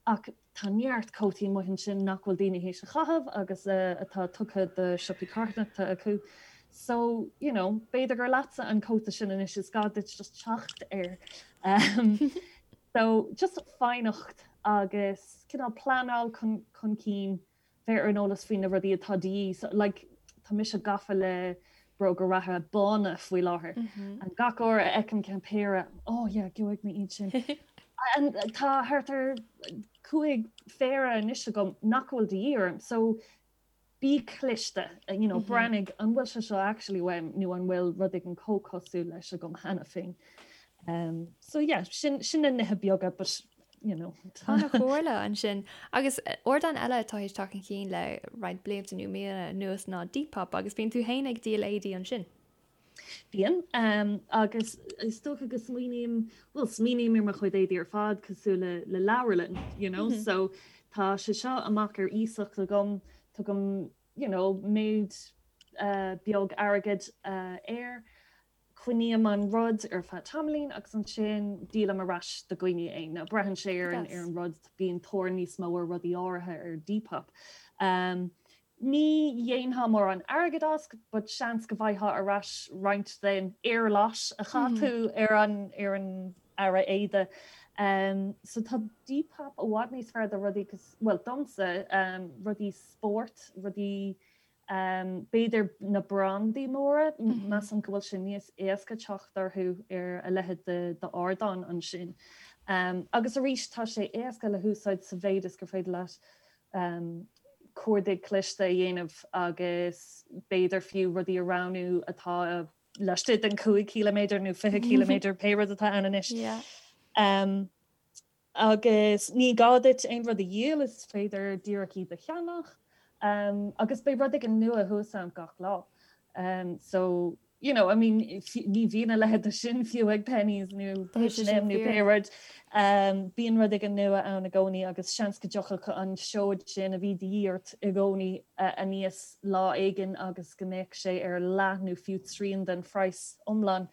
ach tá neart cótaí amuigh ansin nach bhfuil daoine théis a chaitheamh agus atá tugtha do siopaí carthanachta acu. So, you know, b'fhéidir gur leatsa an cóta sin anois, is gá duit just teacht air. So, just foighneacht agus cineál pleanáil chun chun cinn, bheith ar an eolas faoi na rudaí atá de dhíth. So, like, tá mise gafa le bróga reatha bána faoi láthair. And gach uair a fheicim ceann péire, oh yeah, gheobhaidh mé iad sin. And tá thart ar 5 phéire anois agam nach bhfuil de dhíth orm. So, bí cliste, you know, breathnaigh an bhfuil sé seo actually uaim nó an bhfuil rud éigin chomh cosúil leis agam cheana féin. Um, so yeah, sin, sin na nithe beaga, but you know. An-chomhairle ansin. Agus ardán eile atá théis teacht chun cinn le roinnt blianta nó míonna anuas ná Depop agus bíonn tú féin ag díol éadaí ansin. Bíonn, agus is dócha go smaoiním, bhuel, smaoiním ar mo chuid éadaí ar fad cosúil le le leabharlann, you know, so tá sé seo amach ar iasacht agam, tugaim, you know, méid beag airgid air, coinním an rud ar feadh tamaillín agus ansin díolaim ar ais do dhaoine é. Now braitheann sé ar an ar an rud, bíonn tóir níos mó ar rudaí áirithe ar Depop. Ní dhéanfá mórán airgid as, but seans go bhfaighfeá ar ais roinnt den éarlais a chaith tú ar an ar an earra éide. So tá Depop i bhfad níos fearr do rudaí cos, bhuel domsa, rudaí spóirt, rudaí b'fhéidir na brandaí móra, measaim go bhfuil sé níos éasca teacht orthu ar a leithéid d'ardán ansin. Agus arís tá sé éasca le húsáid sa mhéid is gur féidir leat cuardaigh cliste a dhéanamh agus b'fhéidir fiú rudaí a roghnú atá laistigh den 5 ciliméadar nó 20 ciliméadar, pé rud atá ann anois. Agus ní gá duit aon rud a dhíol, is féidir díreach iad a cheannach. Agus beidh rud éigin nua thuas ann gach lá. So, you know, I mean, ní bhíonn a leithéid de sin fiú ag Penneys nó H&M nó pé rud. Bíonn rud éigin nua ann i gcónaí agus seans go dtiocfadh an seoid sin a bhí de dhíth ort i gcónaí aníos lá éigin agus go mbeadh sé ar leath nó fiú trian den phraghas iomlán.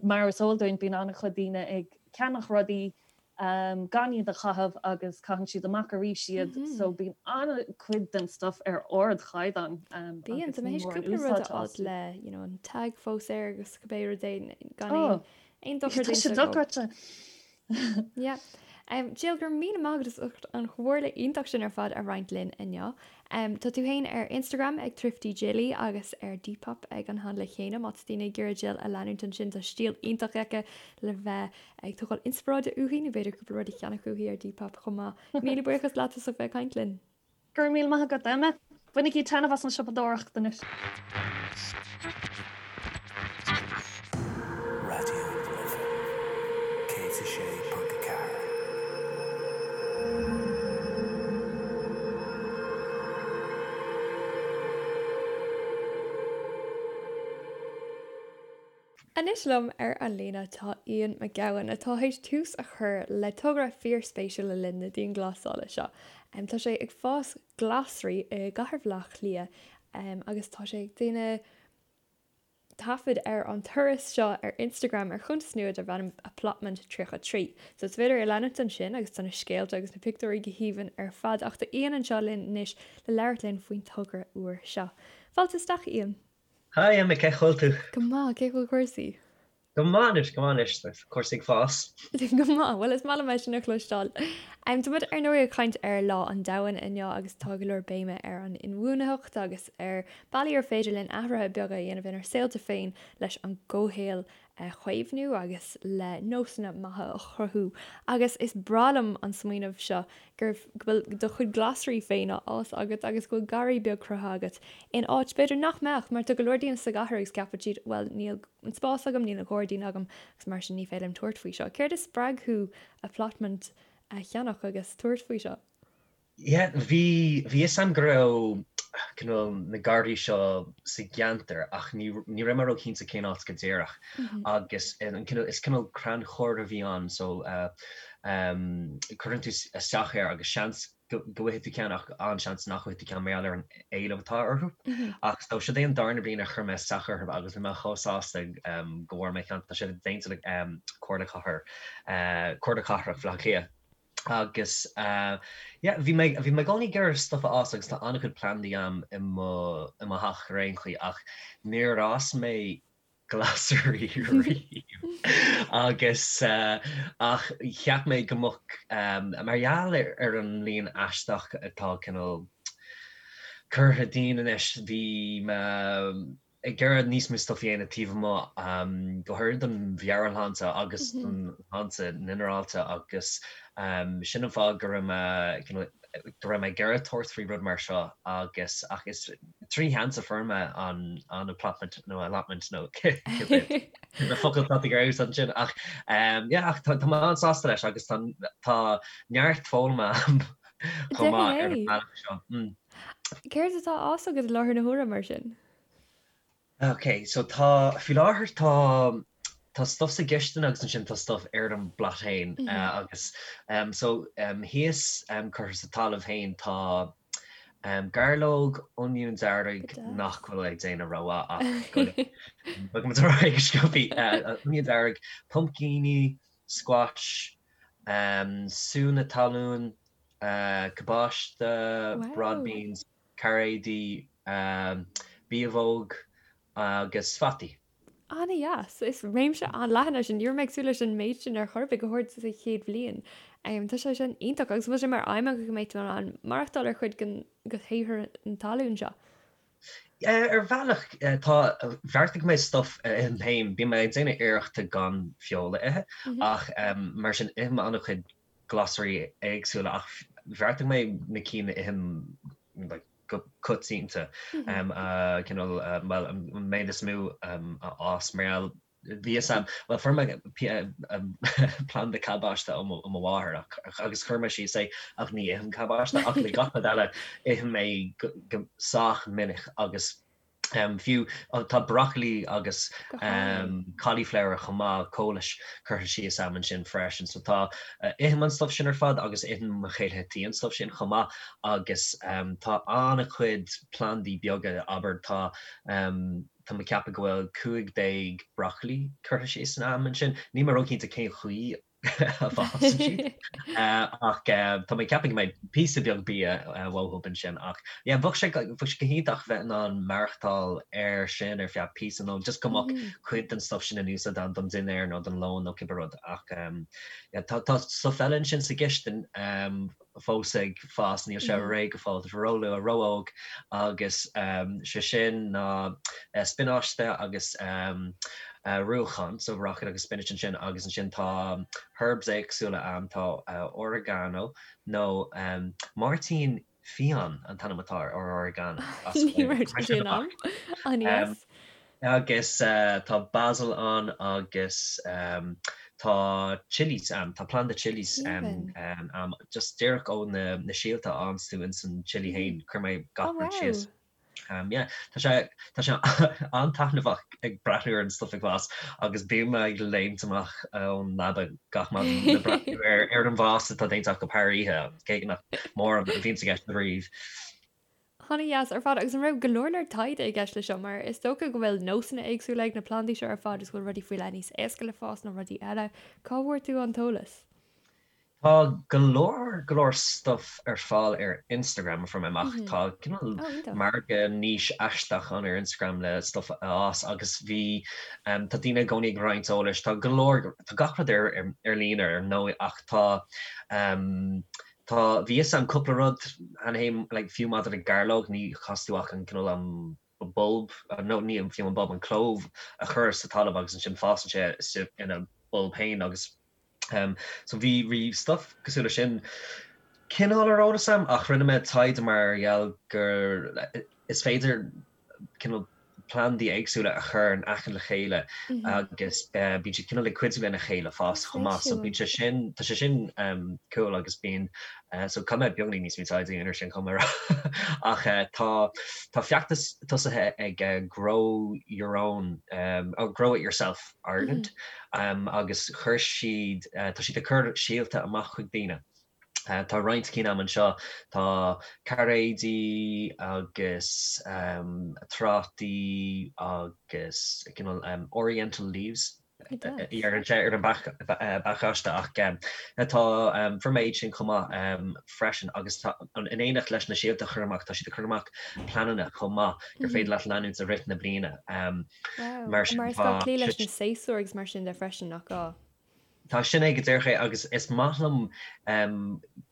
Mar is eol dúinn, bíonn an-chuid daoine ag ceannach rudaí gan iad a chaitheamh agus caitheann siad amach arís iad so bíonn an-chuid den stuff ar ardchaighdeán Bíonn, tá mé théis cúpla rud a fháil le you know an tag fós air agus cibé rud é gan aon aon dochar Tá sé dochreidte. Yeah. Jill, go raibh míle maith agat as ucht an chomhairle iontach sin ar fad a roinnt linn inniu. Tá tú féin ar Instagram ag Thrifty Jilly agus ar Depop ag an handle chéanna má tá daoine ag iarraidh Jill a leanúint ansin tá stíl iontach aici le bheith ag tógáil inspioráide uaithi nó b'fhéidir cúpla rud a cheannach uaithi ar Depop chomh maith. Míle buíochas leat as ucht bheith ag caint linn. Go raibh míle maith agat, Emma. Bainigí taitneamh as an siopadóireacht anois. Raidió na Life 106.4. Anois liom ar an líne tá Ian McGowan atá théis tús a chur le togra fíorspéisiúil le linn na dianghlasála seo. Tá sé ag fás glasraí i gcathair Bhaile Átha Cliath agus tá sé ag déanamh taifead ar an turas seo ar Instagram ar chuntas nua darb ainm Applotment 33. So is féidir é a leanúint ansin agus tá na scéalta agus na pictiúirí go haoibhinn ar fad ach tá Ian anseo linn anois le labhairt linn faoin togra úr seo. Fáilte isteach Ian! Hi Emma, cén chaoi a bhfuil tú? Go maith, cén chaoi a bhfuil cúrsaí? Go maith anois, go maith anois, tá cúrsaí ag fás. Go maith, bhuel is maith liom é sin a chloisteáil. Tá muid ar ndóigh ag caint ar Lá an Domhain inniu agus tá go leor béime ar an inbhuanaitheacht agus ar bealaí ar féidir linn athruithe beaga a dhéanamh inár saolta féin leis an gcomhshaol a chaomhnú agus le nósanna maithe a chruthú. Agus is breá liom an smaoineamh seo gur, go bhfuil do chuid glasraí féin á fhás agat agus go bhfuil garraí beag cruthaithe agat in áit b'fhéidir nach mbeadh, mar tá go leor daoine sa gcathair agus ceapann siad bhuel níl an spás agam, níl an gairdín agam agus mar sin ní féidir liom tabhairt faoi seo. Céard a spreag thú applotment a cheannach agus tabhairt faoi seo? Yeah, bhí, bhí fhios a'm go raibh cineál na garraí seo sa gceantar ach ní, ní raibh mé ró-chinnte cén áit go díreach agus an cineál, is cineál crannchur a bhí ann so cuireann tú isteach air agus seans go, go bhfaighidh tú ceann ach an-seans nach bhfaighidh tú ceann mar gheall ar an éileamh atá orthu. Ach so siod é an darna bliain a chuir mé isteach orthu agus bhí mé chomh sásta go bhfuair mé ceann, tá sé déanta le Comhairle Cathair, Comhairle Cathrach Bhaile Átha Cliath. Agus yeah, bhí mé, bhí mé i gcónaí ag iarraidh stuff a fhás agus tá an-chuid plandaí a'm i mo, i mo theach ar aon chaoi ach níor fhás mé glasraí riamh agus ach cheap mé go mbeadh, mar gheall ar, ar an mbliain aisteach atá cineál curtha dínn anois, bhí mé, ag iarraidh níos mó stuff a dhéanamh taobh amuigh, go háirid don mheabhairshláinte agus don shláinte ghinearálta agus sin an fáth go raibh mé go raibh mé ag iarraidh tabhairt faoi rud mar seo agus ach is trí sheans a fuair mé an an applotment nó allotment nó cibé focal atá tú ag iarraidh a úsáid ansin ach yeah ach tá mé an-sásta leis agus tá tá neart foghlama a'm chomh maith ar an mbealach seo. Céard atá á fhás agat i láthair na huaire mar sin? Ok, so tá, faoi láthair tá, tá stuff sa gcistin agus ansin tá stuff ar an bplot féin agus so thíos curtha sa talamh féin tá gairleog, oinniún dearg nach bhfuil ag déanamh rómhaith ach go bhfaighidh muid ar aghaidh go sciobtha, oinniún dearg, pumpcíní, squash, súnna talún, cabáiste, broad beans. cairéidí, biabhóg agus fataí. An-dheas. Is réimse an-leathan é sin. Ní raibh mé ag súil leis an méid sin ar chor ar bith, go háirid sa chéad bhliain. Tá sé sin iontach agus an bhfuil sé mar aidhm agat go mbeidh tú in ann maireachtáil ar chuid den shaothar na talún seo? Ar bhealach, tá. Bheartaigh mé stuff a ithim féin. Bíonn mé ag déanamh iarrachta gan feoil a ithe ach mar sin ithim an-chuid glasraí éagsúla ach bheartaigh mé na cinn a ithim like go coitianta a cineál bhuel an méid is mó a fhás mar gheall bhí fhios a'm, bhuel fuair mé planda cabáiste ó mo mháthair agus chuir mé síos é ach ní ithim cabáiste ach le gach rud eile ithim é go sách minic agus fiú tá broccoli agus cauliflower chomh maith, cóilis curtha síos a'm ansin freisin so tá, ithim an stuff sin ar fad agus itheann mo chéile tí an stuff sin chomh maith agus tá an-chuid plandaí beaga, abair tá Tá mé ag ceapadh go bhfuil 15 broccoli curtha síos a'm ansin. Níl mé róchinnte cén chaoi a bhfásann siad ach tá mé ag ceapadh go mbeidh píosa beag bia uathu ansin ach yeah bheadh sé bheadh sé go hiontach bheith in ann maireachtáil air sin ar feadh píosa nó just go mbeadh cuid den stuff sin in úsáid agam don dinnéar nó don lón nó cibé rud ach yeah tá tá stuff eile ansin sa gcistin fós ag fás, níl sé réidh go fóill, tá sé róluath, ró-óg agus sé sin ná spionáiste agus ruachán, so rocket agus spinach ansin agus ansin tá herbs éagsúla ann, tá oregano nó máirtín fiáin an t-ainm atá ar oregano as Ní raibh sé sin ann. An-dheas. Agus tá basil ann agus tá chillies ann, tá planda chillies ann, just díreach ó na síolta a fhaigheanns tú ins an chilli fhéin, chuir mé gach rud síos. Yeah, tá sé, tá sé an-taitneamhach ag breathnú ar an stuff ag fás agus bím ag léimt amach ón leaba gach maidin le breathnú ar ar an bhfás atá déanta acu thar oíche, cé nach mórán a bhíonns i gceist ariamh. An-dheas ar fad. Agus an raibh go leor leor taighde i gceist leis seo? Mar is dócha go bhfuil nósanna éagsúla ag na plandaí seo ar fad is go bhfuil rudaí faoi leith níos éasca le fás ná rudaí eile. Cá bhfuair tú an t-eolas? Tá go leor go leor stuff ar fáil ar Instagram a fuair mé amach. Tá cineál margadh niche aisteach ann ar Instagram le stuff a fhás agus bhí tá daoine i gcónaí ag roinnt eolais. Tá go leor, tá gach rud ar ar líne ar ndóigh ach tá Tá, bhí fhios a'm cúpla rud cheana féin, like fiú maidir le gairleog, ní chaithfidh tú ach an cineál an bulb, nó ní fiú an bulb, an clove a chur sa talamh agus ansin fásann sé istigh ina bulb féin agus um so bhí, bhí stuff cosúil le sin cineál ar eolas a'm ach rinne mé taighde mar gheall gur is féidir cineál plandaí éagsúla a chur in aice le chéile agus bíonn siad cineál ag cuidiú lena chéile fás chomh maith. So bíonn sé sin, tá sé sin cool agus bíonn, so caithfidh mé beagáinín níos mó taighde a dhéanamh ar sin chomh maith ach tá, tá feachtas tosaithe ag Grow Your Own, oh Grow It Yourself Ireland agus chuir siad, tá siad ag cur síolta amach chuig daoine. Tá roinnt cinn a'm anseo. Tá cairéidí agus trátaí agus cineál oriental leaves a deireann sé ar an bpacáiste ach tá, fuair mé iad sin chomh maith freisin agus tá, in éineacht leis na síolta a chur amach, tá siad ag cur amach pleananna chomh maith gur féidir leat leanúint i rith na bliana. Mar sin tá. Mar is gá cloí leis na séasúir agus mar sin de freisin, nach gá? Tá sin é go díreach é agus is maith liom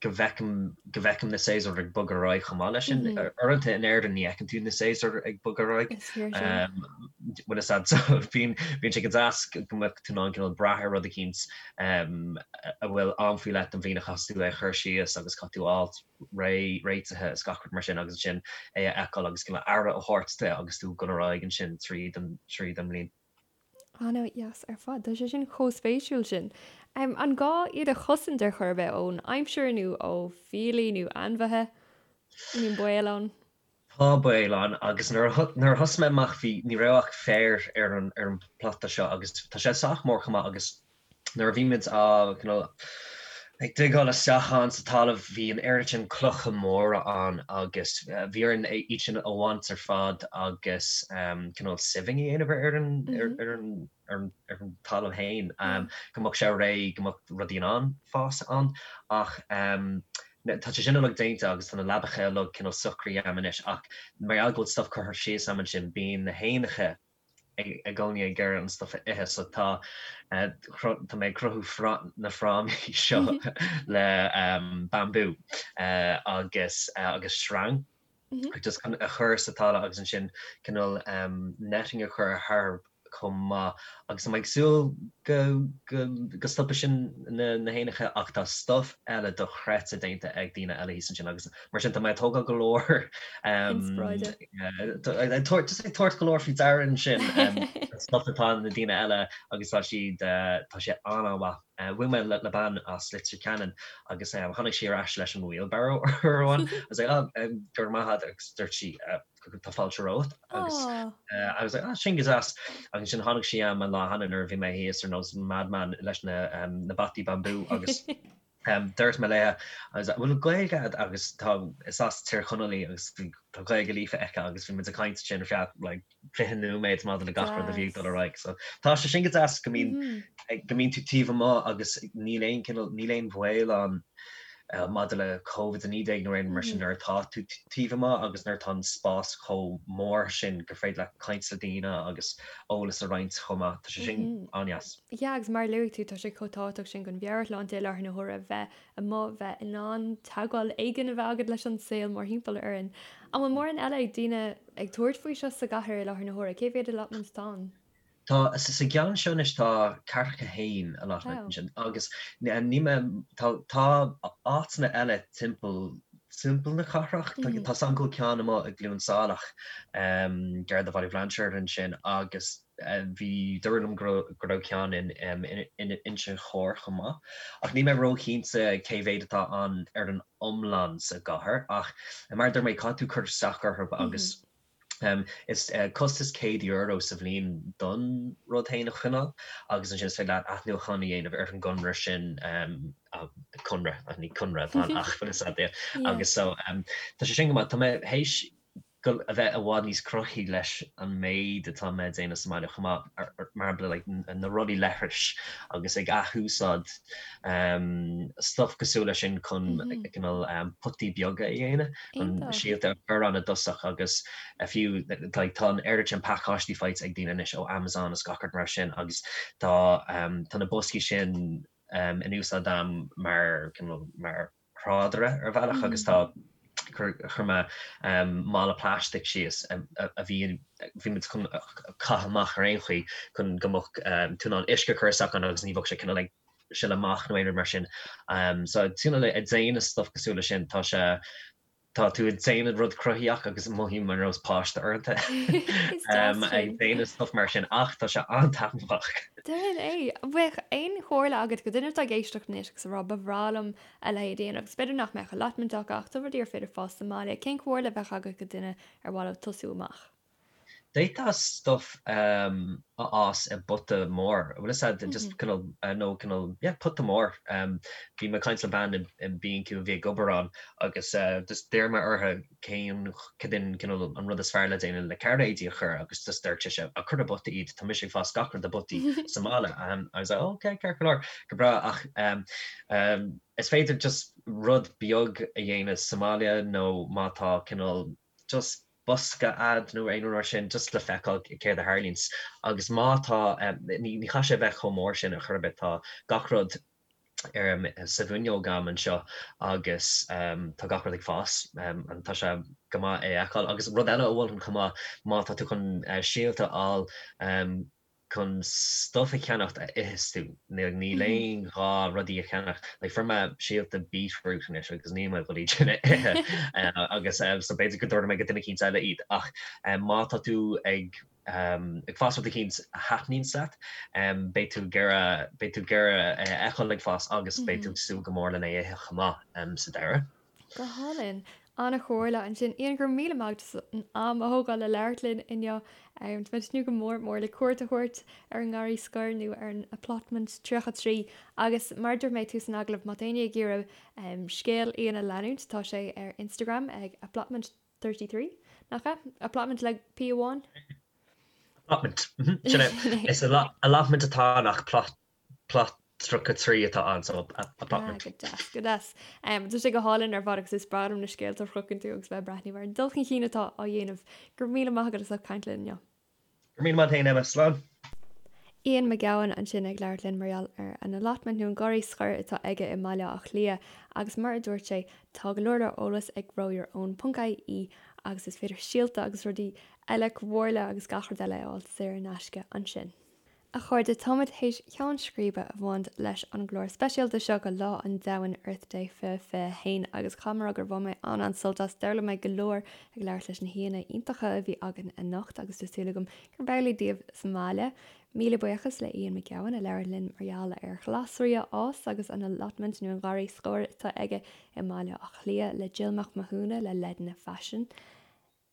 go bhfeicim go bhfeicim na séasúir ag bogadh ar aghaidh chomh maith leis sin. Uaireanta in Éirinn ní fheiceann tú na séasúir ag bogadh ar aghaidh. Is fíor sin. Bhfuil fhios a'd so bíonn bíonn sé go deas go mbeadh tú in ann cineál brath ar rud eicínt a bhfuil am faoi leith don bhliain a chaithfeas tú é a chur síos agus caithfidh tú a fháilt réidh réitithe is gach rud mar sin agus ansin é a fheiceáil agus cineál aire a thabhairt de agus tú ag dul ar aghaidh ansin tríd an tríd an mbliain. An-dheas ar fad. Tá sé sin chomh spéisiúil sin. An gá iad a chosaint ar chor ar bith ón aimsir nó ó fiailí nó ainmhithe? An mbíonn baol ann? Tá baol ann agus nuair a nuair a thosaigh mé amach bhí ní raibh ach féar ar an ar an bplota seo agus tá sé sách mór chomh maith agus Nuair a bhí muid á cineál ag digeáil isteach ann sa talamh bhí an oiread sin clocha móra ann agus bhí orainn iad sin a bhaint ar fad agus cineál sieving a dhéanamh ar an ar an ar an ar an talamh féin go mbeadh sé réidh go mbeadh rudaí in ann fás ann ach. Tá sé sin uilig déanta agus tá na leabacha uilig cineál socraithe a'm anois ach mar gheall go bhfuil stuff curtha síos a'm ansin bíonn na héanacha i gcónaí ag iarraidh an stuff a ithe so tá tá mé ag cruthú na frámaí seo le bambú agus agus sreang just chun a chur sa talamh agus ansin cineál netting a chur thar chomh maith agus tá mé ag súil go go go stopfaidh sin na na héanacha ach tá stuff eile dochreidte déanta ag daoine eile thíos ansin agus mar sin tá mé ag tógáil go leor Inspioráide. ag tabhairt just ag tabhairt go leor faoi deara ansin stuff atá na daoine eile agus tá siad tá sé an-an-mhaith. Bhuail mé le bean as Leitir Ceanainn agus tháinig sí ar ais leis an wheelbarrow uair amháin agus like oh go raibh maith agat agus dúirt sí tá fáilte romhat agus I was like ah sin go deas agus ansin tháinig sí a'm an lá cheana nuair a bhí mé thíos ar nós madman leis na na bataí bambú agus dúirt mé léi I was like bhfuil Gaeilge agat agus tá is as Tír Chonaill í agus bhí tá Gaeilge líofa aici agus bhí muid ag caint ansin ar feadh like 20 nóiméad maidir le gach rud a bhí ag dul ar aghaidh so tá sé sin go deas go mbíonn go mbíonn tú taobh amuigh agus níl aon cineál níl aon bhaol ann maidir le Covid-19 nó aon rud mar sin nuair atá tú taobh amuigh agus nuair atá an spás chomh mór sin gur féidir leat caint le daoine agus eolas a roinnt chomh maith. Tá sé sin an-deas. Yeah, agus mar a luaigh tú, tá sé chomh tábhachtach sin don mheabhairshláinte i láthair na huaire bheith amuigh, bheith in ann teagmháil éigin a bheith agat leis an saol mórthimpeall orainn. An bhfuil mórán eile ag daoine ag tabhairt faoi seo sa gcathair i láthair na huaire? Cé mhéad allotment atá ann? Tá, sa gceann seo anois tá ceathracha haon allotment ansin agus ní mé, tá, tá áiteanna eile timpeall, timpeall na cathrach, tá tá 's a'm go bhfuil ceann amuigh i gCluain Saileach, gar do Bhaile Bhlainséir ansin agus bhí, dúradh liom go raibh, go raibh ceann in, in Inse Chór chomh maith. Ach níl mé róchinnte cé mhéad atá ann ar an iomlán sa gcathair ach mar a dúirt mé caithfidh tú cur isteach orthu agus Is costas €100 sa bhliain don rud féin a choinneáil agus ansin is féidir leat athnuachan a dhéanamh ar an gconradh sin, conradh, ní conradh atá ann ach bhfuil fhios agat é. Agus so tá sé sin go maith. Tá mé théis a bheith i bhfad níos cruthaithí leis an méid atá mé ag déanamh sa mbaile chomh maith, mar shampla like na rollaí leithris agus ag athúsáid stuff cosúil leis sin chun cineál potaí beaga a dhéanamh. chun síolta a chur ann i dtosach agus fiú like tá an oiread sin pacáistí faighte ag daoine anois ó Amazon is gach rud mar sin agus tá tá na boscaí sin in úsáid a'm mar cineál mar thrádaire ar bhealach agus tá chuir chuir mé mála plaisteach síos a bhí bhí muid chun caitheamh amach ar aon chaoi chun go mbeadh tú in ann uisce a chur isteach ann agus ní bheadh sé cineál ag sileadh amach nó aon rud mar sin. So cineál ag déanamh stuff cosúil leis sin, tá sé, tá tú ag déanamh rud cruthaitheach agus mothaím ar nós páiste uaireanta ag déanamh stuff mar sin ach tá sé an-taitneamhach. Déan é! Bheadh aon chomhairle agat go duine atá ag éisteacht anois agus ag rá ba bhreá liom a leithéid a dhéanamh agus b'fhéidir nach mbeadh allotment acu ach tá rudaí ar féidir fás sa mbaile, cén chomhairle a bheadh agat go duine ar mhaith leo tosú amach? D'fhéadfá stuff a fhás i bpota mór, bhfuil fhios a'd, just cineál, nó cineál, yeah, pota mór. Bhí mé ag caint le bean i B&Q a bhí ag obair ann agus just d'iarr mé uirthi cén, cad é cineál an rud is fearr le déanamh le cairéidí a chur agus just dúirt sise, ah, cuir i bpota iad, tá mise ag fás gach rud i bpotaí sa mbaile. I was like, oh, okay, ceart go leor, go breá ach is féidir just rud beag a dhéanamh sa mbaile nó má tá cineál just bosca a'd nó aon rud mar sin just le feiceáil céard a tharlaíonns agus má tá, ní chaithfidh sé a bheith chomh mór sin ar chor ar bith, tá gach rud ar sa bhfuinneog a'm anseo agus tá gach rud ag fás and tá sé go maith é a fheiceáil agus rud eile a mholfainn chomh maith má tá tú chun síolta a fháil chun stuff a cheannacht a itheas tú. Níl aon ghá rudaí a cheannacht. Like fuair mé síolta beetroot anois agus níl mé ag dul iad sin a ithe agus so b'fhéidir go dtabharfaidh mé go duine eicínt eile iad. Ach má tá tú ag ag fás rud eicínt a thaitníonns leat, beidh tú ag iarraidh beidh tú ag iarraidh é a fheiceáil ag fás agus beidh tú ag súil go mór lena ithe chomh maith sa deireadh. Go hálainn. An-chomhairle ansin. Ian, go raibh míle maith agat as an am a thógáil le labhairt linn inniu. Tá mé ag tnúth go mór mór le cuairt a thabhairt ar an nGarraí Scoir nó ar an Applotment 33 agus mar a dúirt mé tús an agallaimh, má tá éinne ag iarraidh scéal Ian a leanúint, tá sé ar Instagram ag Applotment 33, nach ea? Applotment le P amháin? Applotment, sin é. Is allotment atá ann ach plot, plot. 33 atá ann so allotment. Go deas, go deas. Tá sé go hálainn ar fad agus is breá liom na scéalta a chruthaíonn tú agus bheith ag breathnú ar an dul chun cinn atá á dhéanamh. Go raibh míle maith agat as ucht caint linn inniu. Go raibh míle maith agat féin Emma. Slán. Ian Mac Gabhann ansin ag labhairt linn mar gheall ar an allotment nó an garraí scoir atá aige i mBaile Átha Cliath agus mar a dúirt sé tá go leor leor eolas ag growyourown.ie agus is féidir síolta agus rudaí eile, comhairle agus gach rud eile a fháil saor in aisce ansin. A chairde, táimid théis ceann scríbe a bhaint leis an gclár speisialta seo go Lá an Domhain, Earth Day 2021, agus caithfidh mé a rá gur bhain mé an-an-sult as. D'fhoghlaim mé go leor ag labhairt leis na haíonna iontacha a bhí againn anocht agus tá súil agam gurb amhlaidh daoibh sa mbaile. Míle buíochas le Ian Mac Gabhann a labhair linn mar gheall ar ghlasraí a fhás agus an allotment nó an garraí scoir atá aige i mBaile Átha Cliath, le Jill Mac Mathúna le Leideanna Faisin,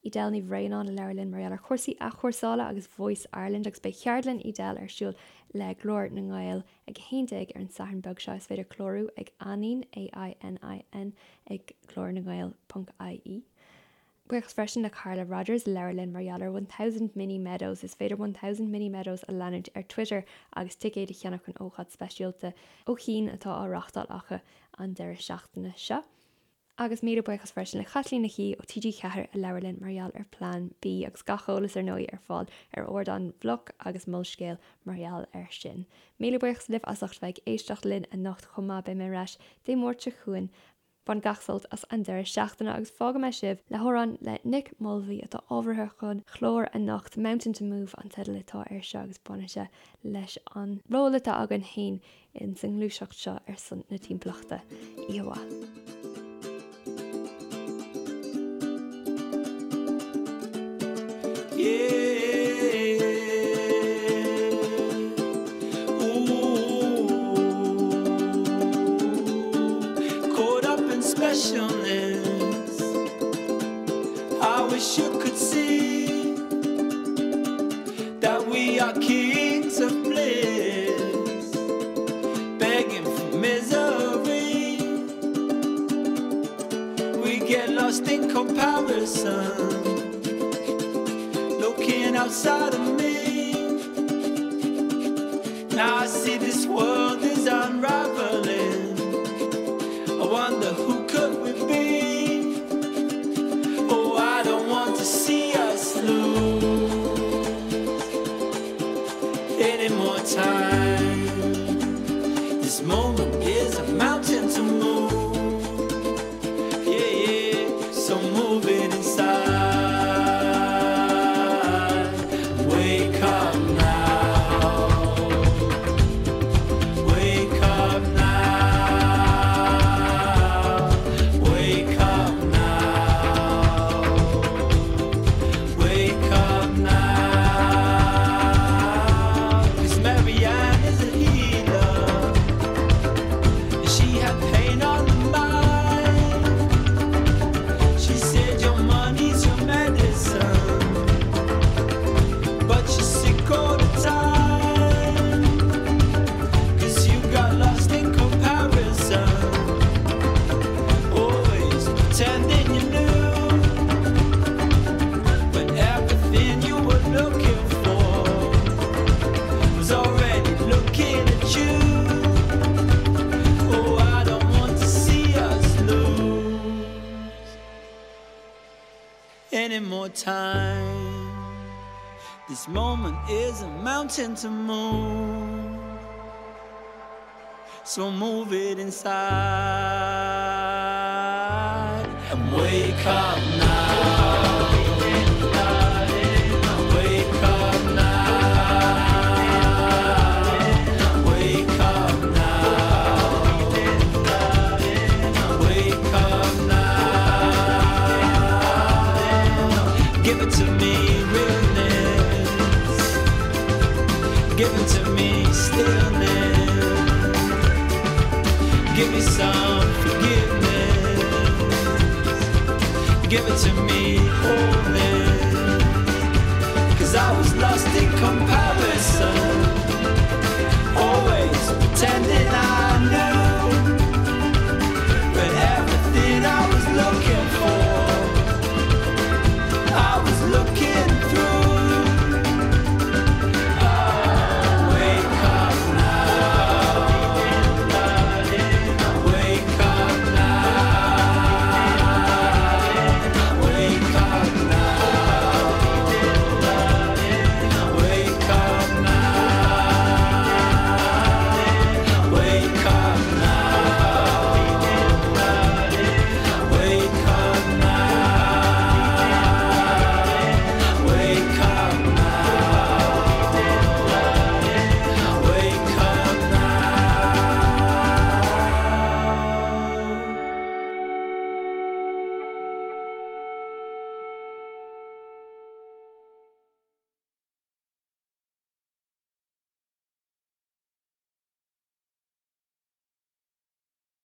Edel Ní Bhraonáin a labhair linn mar gheall ar chúrsaí athchúrsála agus Voice Ireland agus beidh ceardlann Edel ar siúl le Glór na nGael ag 11 ar an Satharn beag seo. Is féidir clárú ag Ainin, A-I-N-I-N, ag glornagael ponc ie. Buíochas freisin le Carla Rodgers a labhair linn mar gheall ar 1000 Mini Meadows. Is féidir 1000 Mini Meadows a leanúint ar Twitter agus ticéid a cheannach don ócáid speisialta ó chian atá á reáchtáil acu an deireadh seachtaine seo. Agus míle buíochas freisin le Caitlín Nic Aoidh ó TG4 a labhair linn mar gheall ar Plean B agus gach eolas ar ndóigh ar fáil ar ardán Bhloc agus Molscéal mar gheall air sin. Míle buíochas libh as ucht bheith ag éisteacht linn anocht chomh maith, beidh mé ar ais Dé Máirt seo chugainn. Bain gach sult as an deireadh seachtaine agus fágfaidh mé sibh le hamhrán le Nick Mulvey atá ábhartha don chlár anocht, Mountain to Move an teideal atá air seo agus baineann sé leis an ról atá againn féin ins an ngluaiseacht seo ar son na timpeallachta. Oíche mhaith. Caught up in specialness I wish you could see That we are kings of bliss Begging for misery We get lost in comparison Looking outside of me Now I see this world is unraveling I wonder who could we be Oh I don't want to see us lose Any more time This moment is a mountain to move Yeah yeah so move it inside Wake up now Wake up now Wake up now Wake up now 'Cause Marianne is a healer She had pain on the mind She said your money's your medicine But you're sick all the time 'Cause you got lost in comparison Always pretending you knew When everything you were looking for Was already looking at you Oh I don't want to see us lose Any more time This moment is a mountain to move So move it inside And wake up now Wake up now Wake up now Wake up now Give it to me realness Give it to me stillness Give me some forgiveness Give it to me.